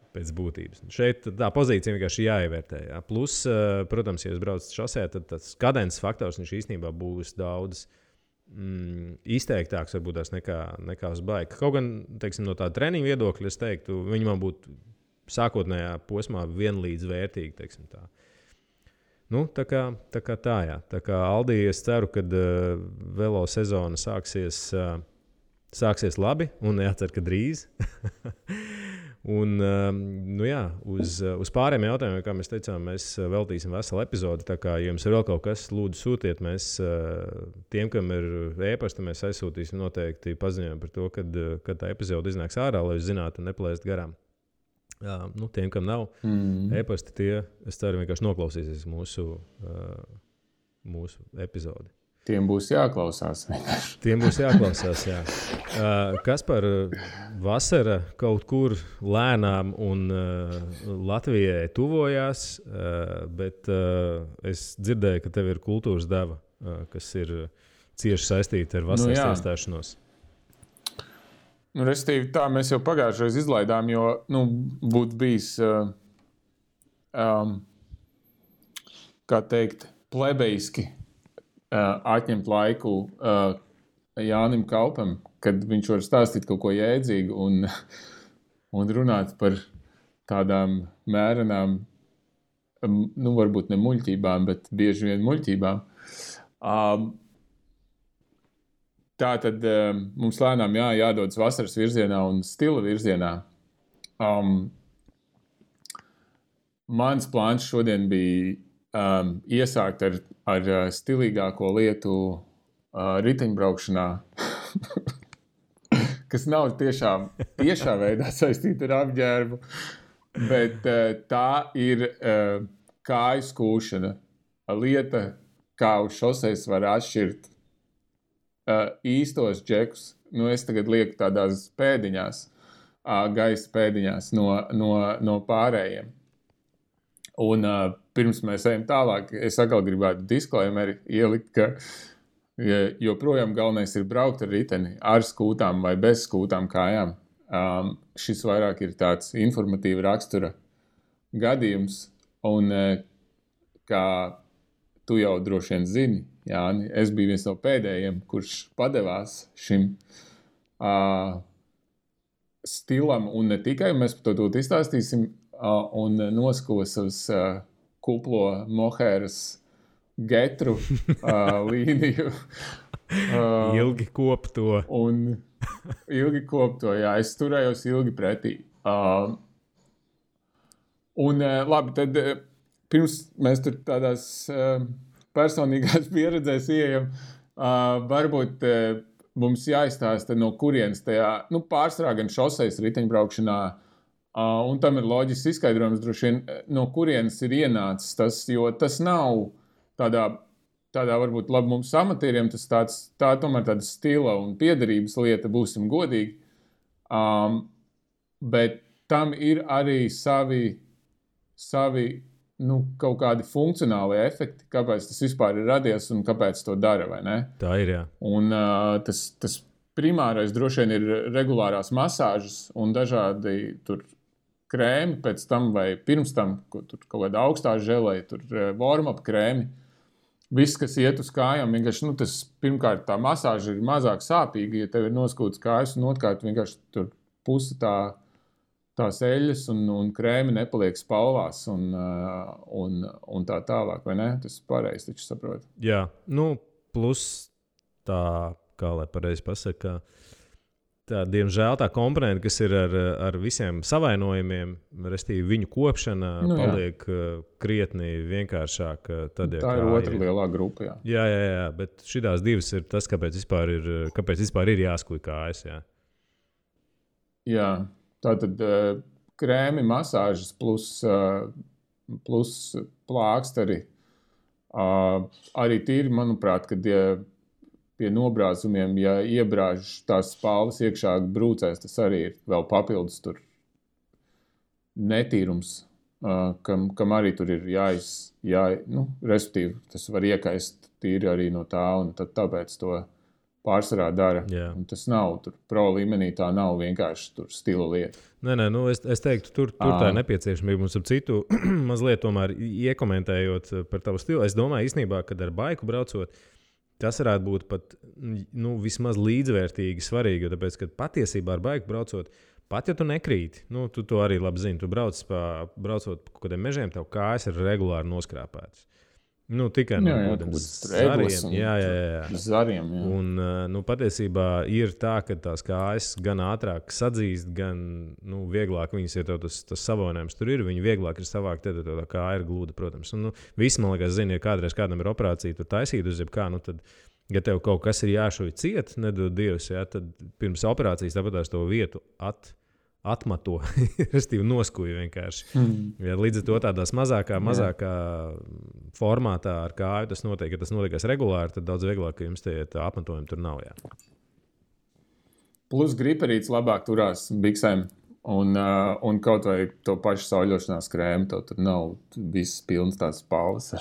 Pēc būtības. Šeit tā pozīcija vienkārši jāievērtē. Plus, protams, ja jūs braucat šosē, tad tas kadences faktors viņš īstenībā būs daudz izteiktāks varbūt tās nekā uz baika. Kaut gan, teiksim, no tā treniņa viedokļa, es teiktu, viņi man būtu sākotnējā posmā vienlīdz vērtīgi, teiksim tā. Tā kā tā, jā. Tā kā Aldi, es ceru, kad velo sezona sāksies labi, un jācer, ka drīz. Un, uz pārējiem jautājumiem, kā mēs teicām, mēs veltīsim veselu epizodi. Tā kā jums ir vēl kaut kas, lūdzu sūtiet. Mēs tiem, kam ir e-pasta, mēs aizsūtīsim noteikti paziņojumu par to, kad tā epizode iznāks ārā, lai jūs zinātu un neplēst garām. Tiem, kam nav e-pasta, tie, es ceru, vienkārši noklausīsies mūsu epizodi. Tiem būs jāklausās. Tiem būs jāklausās, jā. Kas par vasara kaut kur lēnām un Latvijai tuvojās, bet es dzirdēju, ka tev ir kultūras deva, kas ir cieši saistīta ar vasaras iestāšanos. Restīvi, tā mēs jau pagājušreiz izlaidām, jo būtu bijis, kā teikt, plebeiski atņemt laiku Jānim Kaupam, kad viņš var stāstīt kaut ko jēdzīgu un runāt par tādām mērenām, varbūt ne muļķībām, bet bieži vien muļķībām. Tā tad mums lēnām jādodas vasaras virzienā un stila virzienā. Mans plāns šodien bija iesākt ar stilīgāko lietu riteņbraukšanā, kas nav tiešā veidā saistīta ar apģērbu, bet tā ir kāju skūšana. Lieta, kā uz šoseis var atšķirt īstos džekus. Es tagad lieku tādās pēdiņās, gaisa pēdiņās no pārējiem. Un pirms mēs ejam tālāk, es atkal gribētu disclaimeri ielikt, ka joprojām galvenais ir braukt ar riteni, ar skūtām vai bez skūtām kājām. Šis vairāk ir tāds informatīva rakstura gadījums, un kā tu jau droši vien zini, Jāni, es biju viens no pēdējiem, kurš padevās šim stilam, un ne tikai, mēs par to izstāstīsim, un noskuva savas kuplo mohēras getru līniju. Ilgi kopto. Un ilgi kopto, jā, es turējos ilgi pretī. Un labi, tad pirms mēs tur tādās personīgās pieredzēs ieejam, varbūt mums jāizstāsta, no kurienes tajā, pārsvarā gan šoseis riteņbraukšanā, un tam ir loģisks izskaidrojums droši vien, no kurienes ir ienācis tas, jo tas nav tādā varbūt labi mums amatieriem, tā tomēr tāda stila un piederības lieta, būsim godīgi, bet tam ir arī savi kaut kādi funkcionāli efekti, kāpēc tas vispār ir radies un kāpēc to dara, vai ne? Tā ir, jā. Un tas primārais droši vien ir regulārās masāžas un dažādi tur krēmi pēc tam vai pirms tam, tur kaut kāda augstā želē, tur warm-up krēmi. Viss, kas iet uz kājām, vienkārši, tas pirmkārt tā masāža ir mazāk sāpīga, ja tev ir noskūtas kājas un otrkārt vienkārši tur pusi tās eļas un krēmi nepaliek spalvās un tā tālāk, vai ne? Tas pareizi taču saprot. Jā, plus tā, kā lai pareizi pasaka, tā, diemžēl tā komponenta, kas ir ar visiem savainojumiem, restīvi viņu kopšana paliek krietni vienkāršāk. Tad, tā ir otra lielā grupa, jā. Jā, bet šitās divas ir tas, kāpēc vispār ir jāskuj kājas, jā. Jā. Tātad krēmi, masāžas plus plāksteri. Arī tīri, manuprāt, kad pie nobrāzumiem, ja iebrāž tās spalvas iekšā brūcēs, tas arī ir vēl papildus tur netīrums, kam arī tur ir respektīvi, tas var iekaist tīri arī no tā, un tad tāpēc to pārsvarā dara. Un tas nav tur pro līmenī, tā nav vienkārši tur stila lieta. Nē, es teiktu, tur tā ir nepieciešamība. Mums ap citu mazliet tomēr iekomentējot par tavu stilu. Es domāju, īstenībā, kad ar baiku braucot, tas varētu būt pat vismaz līdzvērtīgi svarīgi, jo tāpēc, ka patiesībā ar baiku braucot, pat ja tu nekrīti, tu to arī labi zini, tu braucot pa kaut kādiem mežiem, tev kājas ir regulāri noskrāpētas. Tikai no zariem. Jā. Zariem, jā. Un patiesībā ir tā, ka tās kājas gan ātrāk sadzīst, gan vieglāk viņas, ja tev tas savainojums tur ir, viņi vieglāk ir savākt, tad tā kāja ir glūda, protams. Un visi, man liekas, zina, ja kādreiz kādam ir operācija, tur taisīt uz jebkā, tad, ja tev kaut kas ir jāšuj ciet, nedod Dievs, jā, tad pirms operācijas tāpēc to vietu atmato, restīvi noskuja vienkārši. Ja, līdz ar to tādās mazākā formātā ar kāju tas notiek, ja tas notiekās regulāri, tad daudz vieglāk, ka jums tie apmetojumi tur nav. Jā. Plus griperīts labāk turās biksēm un kaut vai to pašu sauļošanās krēmu, to tur nav viss pilns tās spalvas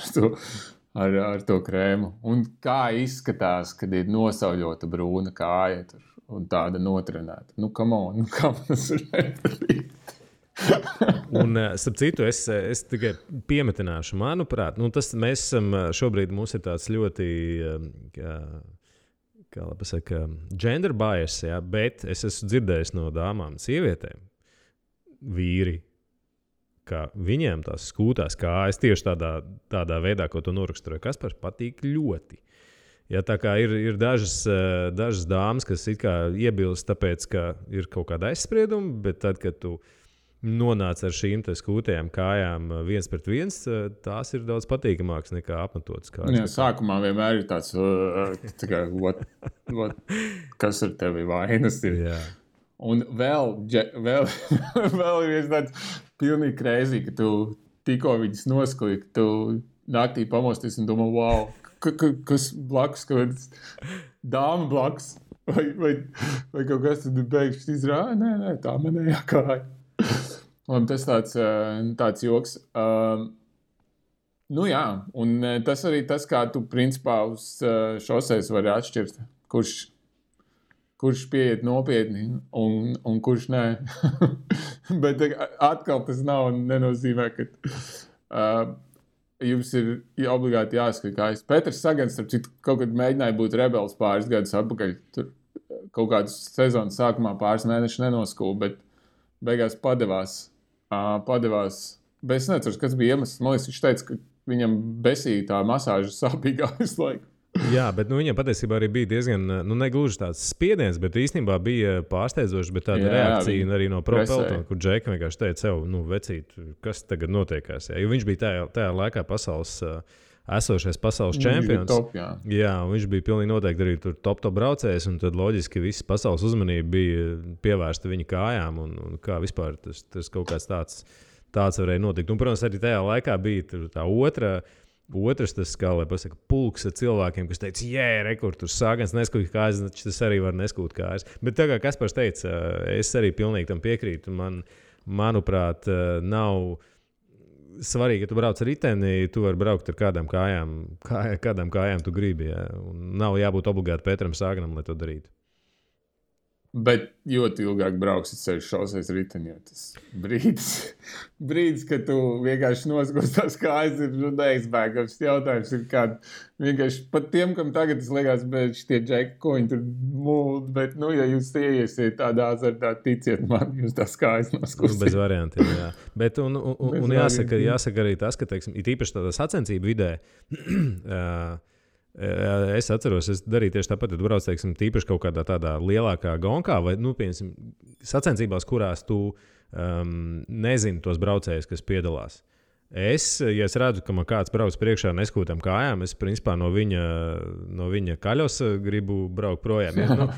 ar to krēmu. Un kā izskatās, kad ir nosauļota brūna kāja tur. Un tāda notrenēta. Come on, kā tas ir nepatīk. Un, starp citu, es tikai piemetināšu, manuprāt, mēs esam šobrīd, mums ir tāds ļoti, kā lai pasaka, gender bias, jā, bet es esmu dzirdējis no dāmām, sievietēm, vīri, ka viņiem tās skūtās kājas tieši tādā veidā, ko to noraksturoja Kaspars, patīk ļoti. Ja, tā kā ir dažas dāmas, kas it kā iebilst, tāpēc, ka ir kaut kāda aizsprieduma, bet tad, kad tu nonāc ar šīm skūtajām kājām 1-1, tās ir daudz patīkamākas nekā apmetotas kājas. Jā, sākumā vienmēr ir tāds, kas ar tevi vainas ir. Jā. Un vēl ir viens tāds pilnīgi crazy, ka tu tikko viņas noskuji, ka tu naktī pamosties un domā, wow, kas blakus, kaut dāma blakus, vai kaut kas tad beigšķi izrāja, nē, tā manējā kāja. Un tas tāds joks. Nu jā, un tas arī tas, kā tu principā uz šoseis vari atšķirt, kurš pieiet nopietni un kurš nē. Bet atkal tas nenozīmē, ka jums ir obligāti jāskat kājas. Petrs Sagans, starp citu, kaut kad mēģināja būt rebels pāris gadus atpakaļ. Tur kaut kādas sezonas sākumā pāris mēnešus nenoskūpa, bet beigās padevās. Bet es neceru, kas bija iemesls. Man liekas, viņš teica, ka viņam besīja tā masāža sāpīgā visu laiku. Jā, bet viņam patiesībā arī bija diezgan, negluži tāds spiediens, bet īstenībā bija pārsteidzoši, bet tāda reakcija arī no Pro Peltona, kur Džeka vienkārši teica sev, vecīt, kas tagad notiekās. Jo viņš bija tajā laikā esošais pasaules čempions. Top, jā, viņš bija pilnīgi noteikti arī tur top braucējs, un tad loģiski visa pasaules uzmanība bija pievērsta viņa kājām, un kā vispār tas kaut kāds tāds varēja notikt. Un, protams, arī tajā laikā bija tā otrs tas, kā lai pasaka, pulks ar cilvēkiem, kas teica, rekur, tur Sagans neskūt kājas, tas arī var neskūt kājas. Bet tā kā Kaspars teica, es arī pilnīgi tam piekrītu. Manuprāt, nav svarīgi, ja tu brauc ar riteni, tu vari braukt ar kādām kājām tu gribi. Jā. Un nav jābūt obligāti Petram Saganam, lai to darītu. Bet ļoti ilgāk brauksit ceļu šoseis riteni, jo tas brīdis, kad tu vienkārši noskūst tās kājas, ir neizbēgams. Jautājums ir kāda vienkārši pat tiem, kam tagad tas liekas, bet šitie džeki, ko viņi tur mūld, bet, ja jūs ieiesiet tādā azartā, ticiet man, jūs tās kājas noskūst. Bez variantiem, jā. Bet, un jāsaka arī tas, ka, teiksim, it īpaši tādā sacensību vidē, es atceros, es darīju tieši tāpat, ja tu brauc, teiksim, tīpaši kaut kādā tādā lielākā gonkā vai, piemēram, sacensībās, kurās tu nezini tos braucējus, kas piedalās. Ja es redzu, ka man kāds brauc priekšā neskūtām kājām, es principā no viņa kaļos gribu braukt projām. Ja,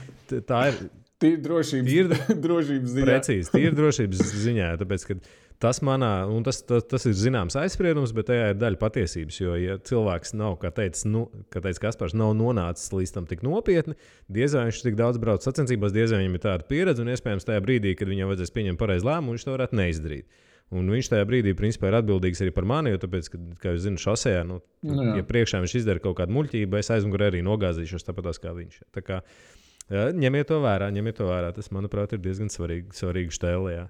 tā ir tīri drošības ziņā. Precīzi, tīri drošības ziņā, tāpēc, ka tas ir zināms aizspriedums, bet tajā ir daļa patiesības, jo, ja cilvēks nav, kā teica Kaspars, nav nonācis līdz tam tik nopietni, diez vai viņš tik daudz brauc sacensībās, diez vai viņam ir tāda pieredze, un iespējams tajā brīdī, kad viņam vajadzēs pieņemt pareizu lēmumu, viņš to varētu neizdarīt. Un viņš tajā brīdī, principā, ir atbildīgs arī par mani, jo tāpēc, ka, kā jūs zināt, šosejā, ja priekšā viņš izdara kaut kādu muļķību, es aizmugurē arī nogāzīšos tāpatās kā viņš. Tā kā ņemiet to vērā. Tas, manuprāt, ir diezgan svarīgi štēlē, jā.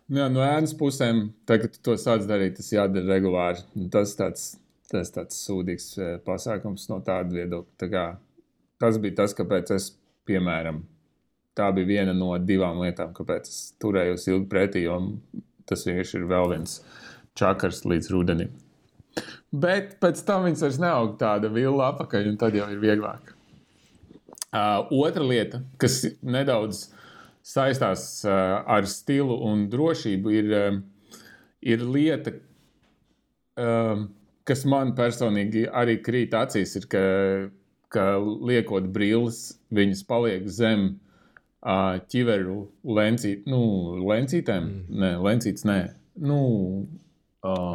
Jā, no ēnas pusēm, tagad tu to sāc darīt, tas jādara regulāri. Tas tāds sūdīgs pasākums no tāda viedokļa. Tā kā, tas bija tas, kāpēc es, piemēram, tā bija viena no 2 lietām, kāpēc es turējos ilgi pretī, jo tas vienkārši ir vēl viens čakars līdz rudenim. Bet pēc tam viņas vairs neaug tāda villa apakaļ, un tad jau ir vieglāk. Otra lieta, kas nedaudz saistās ar stilu un drošību, ir lieta, kas man personīgi arī krīt acīs, ir, ka liekot brilles, viņas paliek zem ķiveru lencītēm. Nē, lencītes nē.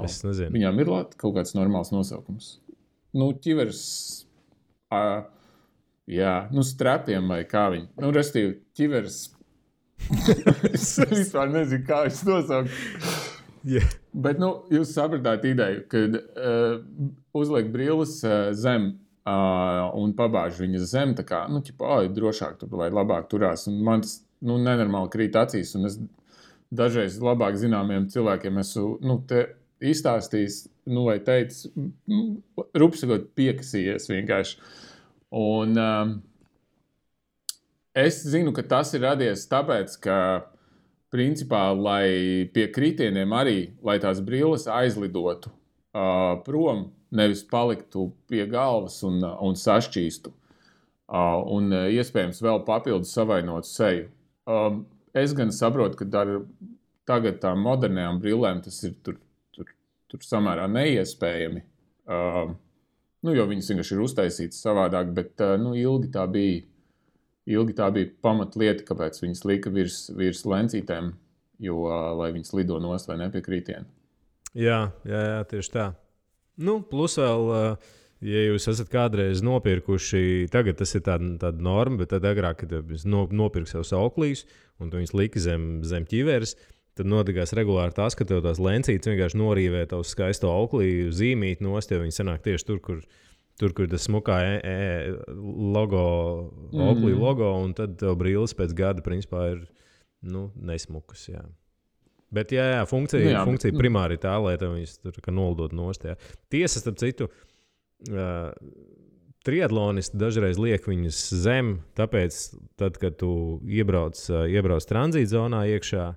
Es nezinu. Viņām ir kaut kāds normāls nosaukums. Ķivers, strapiem vai kā viņi. Restīvi, ķivers. Es vispār nezinu, kā viņš nosaukt. Yeah. Bet, jūs sapratāt ideju, kad uzliek brilles zem un pabāž viņas zem, tā kā, drošāk tur vai labāk turās. Un man tas, nenormāli krīt acīs, un es dažreiz labāk zināmiem cilvēkiem esmu, te izstāstījis, vai teicis, rupsakot piekasījies vienkārši. Un es zinu, ka tas ir radies tāpēc, ka, principā, lai pie kritieniem arī, lai tās brilles aizlidotu prom, nevis paliktu pie galvas un sašķīstu, un iespējams vēl papildus savainotu seju. Es gan saprotu, ka tagad tām modernajām brillēm tas ir tur samērā neiespējami, jo viņas vienkārši ir uztaisītas savādāk, bet ilgi tā bija pamatlieta, kāpēc viņas lika virs lencītēm, lai viņas lido nost vai nepiekrītieni. Jā, tieši tā. Plus vēl, ja jūs esat kādreiz nopirkuši, tagad tas ir tāda norma, bet tad agrāk, kad jūs nopirku sev sauklīs un tu viņus lika zem ķiveres, tad notikās regulāri tas, ka tev tās lencītes vienkārši norīvē tavu skaisto auklī, zīmīt nost, jo viņi sanāk tieši tur, kur tas smukā logo, auklī logo, un tad tev brilles pēc gada principā ir nesmukas, jā. Bet, jā, funkcija primāri tā, lai tev viņas tur nolidot nost, jā. Tiesa, starp citu, triatlonisti dažreiz liek viņus zem, tāpēc, tad, kad tu iebrauc tranzītzonā iekšā,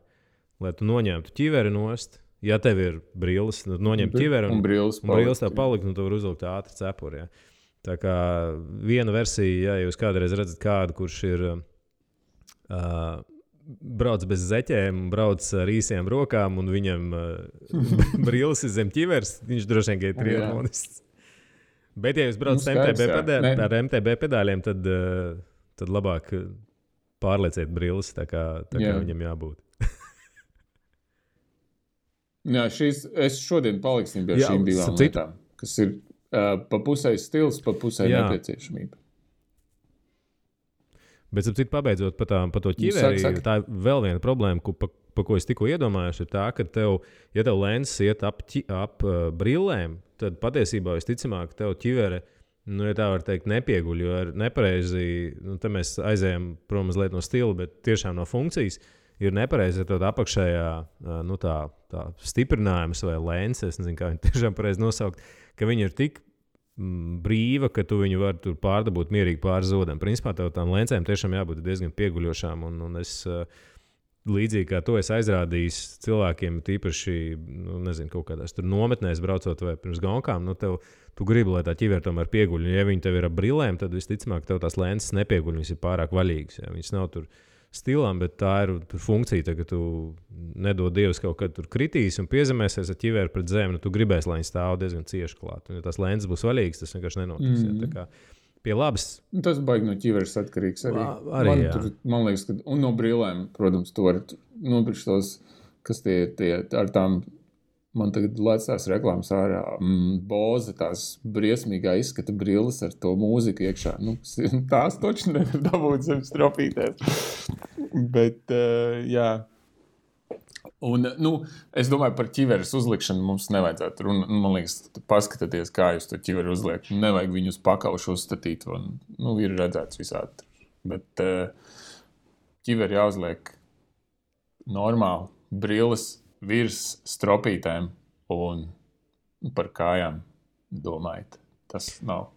lai tu noņemtu ķiveri nost, ja tev ir brilles, noņemt ķiveri un brilles tā palikt, un tu var uzlikt ātri cepuri, jā. Tā kā viena versija, ja jūs kādreiz redzat kādu, kurš ir brauc bez zeķēm, brauc ar īsiem rokām, un viņam brilles ir zem ķivers, viņš droši vien ir triatlonists. Bet, ja jūs braucat ar MTB pedāļiem, tad labāk pārlieciet brilles, tā kā viņam jābūt. Jā, es šodien paliksim pie šīm divām lietām, kas ir pa pusē stils, pa pusē nepieciešamība. Bet, ap citu, pabeidzot pa to ķiveri, tā ir vēl viena problēma, pa ko es tikko iedomājos, ir tā, ka ja tev lenses iet ap brillēm, tad patiesībā visticamāk tev ķivere, ja tā var teikt, nepieguļ, jo ir nepareizi, te mēs aizējam prom mazliet no stila, bet tiešām no funkcijas ir nepareizi, ja tev apakšējā, tā stiprinājums vai lenses, es nezinu, kā viņi tiešām pareizi nosaukt, ka viņi ir tik brīva, ka tu viņu vari tur pārdabūt mierīgi pāri zodam. Principā tev tām lencēm tiešām jābūt diezgan pieguļošām, un es līdzīgi kā to es aizrādījis cilvēkiem, tīpaši, nezinu, kaut kādās tur nometnēs braucot vai pirms gonkām, tu gribi, lai tā ķivere tomēr pieguļ, un ja viņi tev ir ap brillēm, tad visticamāk tev tās lences nepieguļ, viņas ir pārāk vaļīgas, ja? Viņas nav tur stilām, bet tā ir funkcija, ka tu nedod Dievs kaut kad tur kritīs un piezemēsies ar ķiveri pret zemi, tu gribēsi, lai viņi stāv diezgan cieši klāt. Un ja tās lences būs vaļīgas, tas vienkārši nenotiks. Tā kā pie labas. Tas baigi no ķiveres atkarīgs arī. Man liekas, ka un no brillēm, protams, tu vari nopirkt tos, kas tie ar tām, man tagad lēc tās reklāmas ārā, Bose, tās briesmīgā izskata brilles ar to mūziku iekšā. Tās toči nevar dabūt zem stropītēs. Bet, jā. Un, es domāju, par ķiveres uzlikšanu mums nevajadzētu. Man liekas, paskatieties, kā jūs to ķiveri uzliek. Nevajag viņu uz pakaušu uzstatīt. Un, ir redzēts visādi. Bet ķiveri jāuzliek normāli. Brilles virs stropītēm un par kājām domājat. Tas nav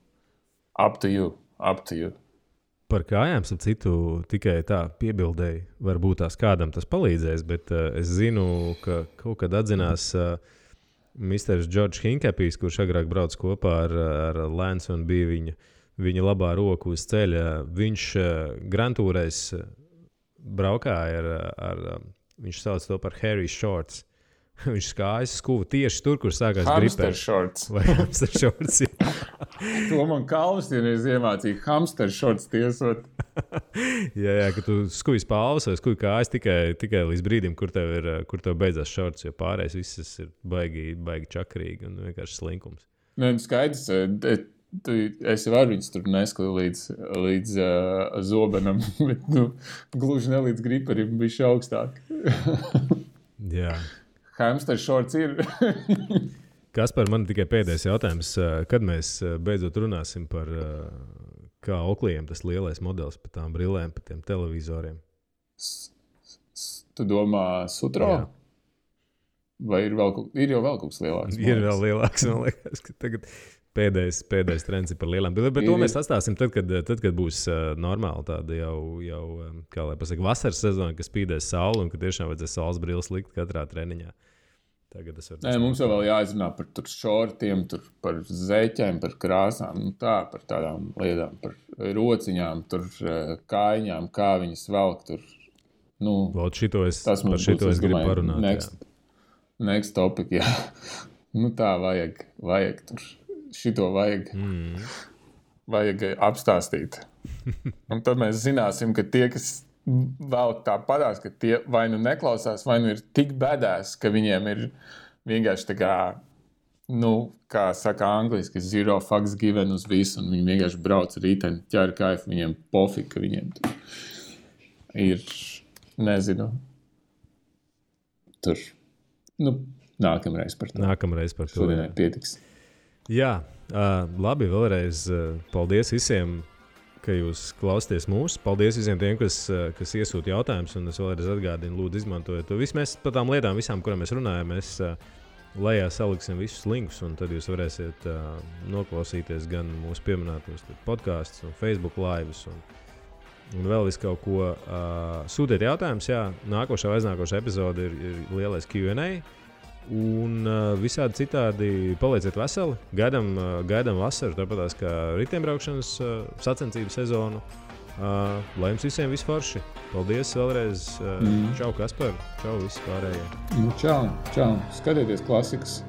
up to you. Par kājām, ap citu, tikai tā piebildēji, varbūt tās kādam tas palīdzēs, bet es zinu, ka kaut kad atzinās Mr. George Hinkapijs, kurš agrāk brauc kopā ar Lance un bija viņa labā roka uz ceļa. Viņš grantūrais braukāja viņš sauc to par Harry Shorts. Viņš skājas skuvu tieši tur, kur sākās gripēt. Hamster shorts. Vai hamster shorts, jā. To man Kalvs vienreiz iemācīja hamster shorts tiesot. jā, ka tu skujas palvas vai skuji kājas tikai līdz brīdim, kur tev beidzās shorts, jo pārējais viss ir baigi čakrīgi un vienkārši slinkums. Skaidrs, es varu viņus tur neskatu līdz zobenam, bet gluži ne līdz griperim, bišķi augstāk. Jā. Hamster shorts ir. Kaspar, man tikai pēdējais jautājums. Kad mēs beidzot runāsim par kā Oakley'iem tas lielais modelis par tām brillēm, par tiem televizoriem? Tu domā Sutro? Jā. Vai ir jau vēl kaut kas lielāks? Ir vēl lielāks, man liekas, ka tagad pēdējais trends ir par lielām brillēm. Bet to mēs atstāsim tad, kad būs normāli tāda jau kā lai pasaka, vasaras sezona, kas spīdēs sauli un ka tiešām vajadzēs saules brilles likt katrā treniņā. Mums vēl jāizrunā par tur šortiem, par zeķēm, par krāsām, par tādām lietām, par rociņām, tur kājiņām, kā viņas velk tur. Šito es gribu parunāt. Next topic, jā. Tā vajag tur. Šito vajag apstāstīt. Un tad mēs zināsim, ka tie, kas vēl tā padās, ka tie vai neklausās, vai ir tik bēdās, ka viņiem ir vienkārši tā kā, kā saka angliski, zero fucks given uz visu, un viņi vienkārši brauc rīteni, ķēra kaifu, viņiem pofik, ka viņiem ir, nezinu, tur, nākamreiz par to. Nākamreiz par to. Šodienai pietiks. Jā, labi, vēlreiz paldies visiem, ka jūs klausāties mūsu. Paldies visiem tiem, kas iesūta jautājumus, un es vēlreiz atgādinu, lūdzu, izmantojiet to. Mēs par tām lietām, visām, kurām mēs runājam, mēs lejā saliksim visus linkus, un tad jūs varēsiet noklausīties gan mūsu pieminētos podkastus, un Facebook lives, un vēl visu kaut ko. Sūtiet jautājumus, jā, nākošā vai aiznākošā epizode ir lielais Q&A. Un visādi citādi palieciet veseli. Gaidām vasaru, tāpatās kā riteņbraukšanas sacensību sezonu. Lai jums visiem viss forši. Paldies vēlreiz. Čau, Kaspar. Čau, visi pārējie. Čau. Skatieties klasikas.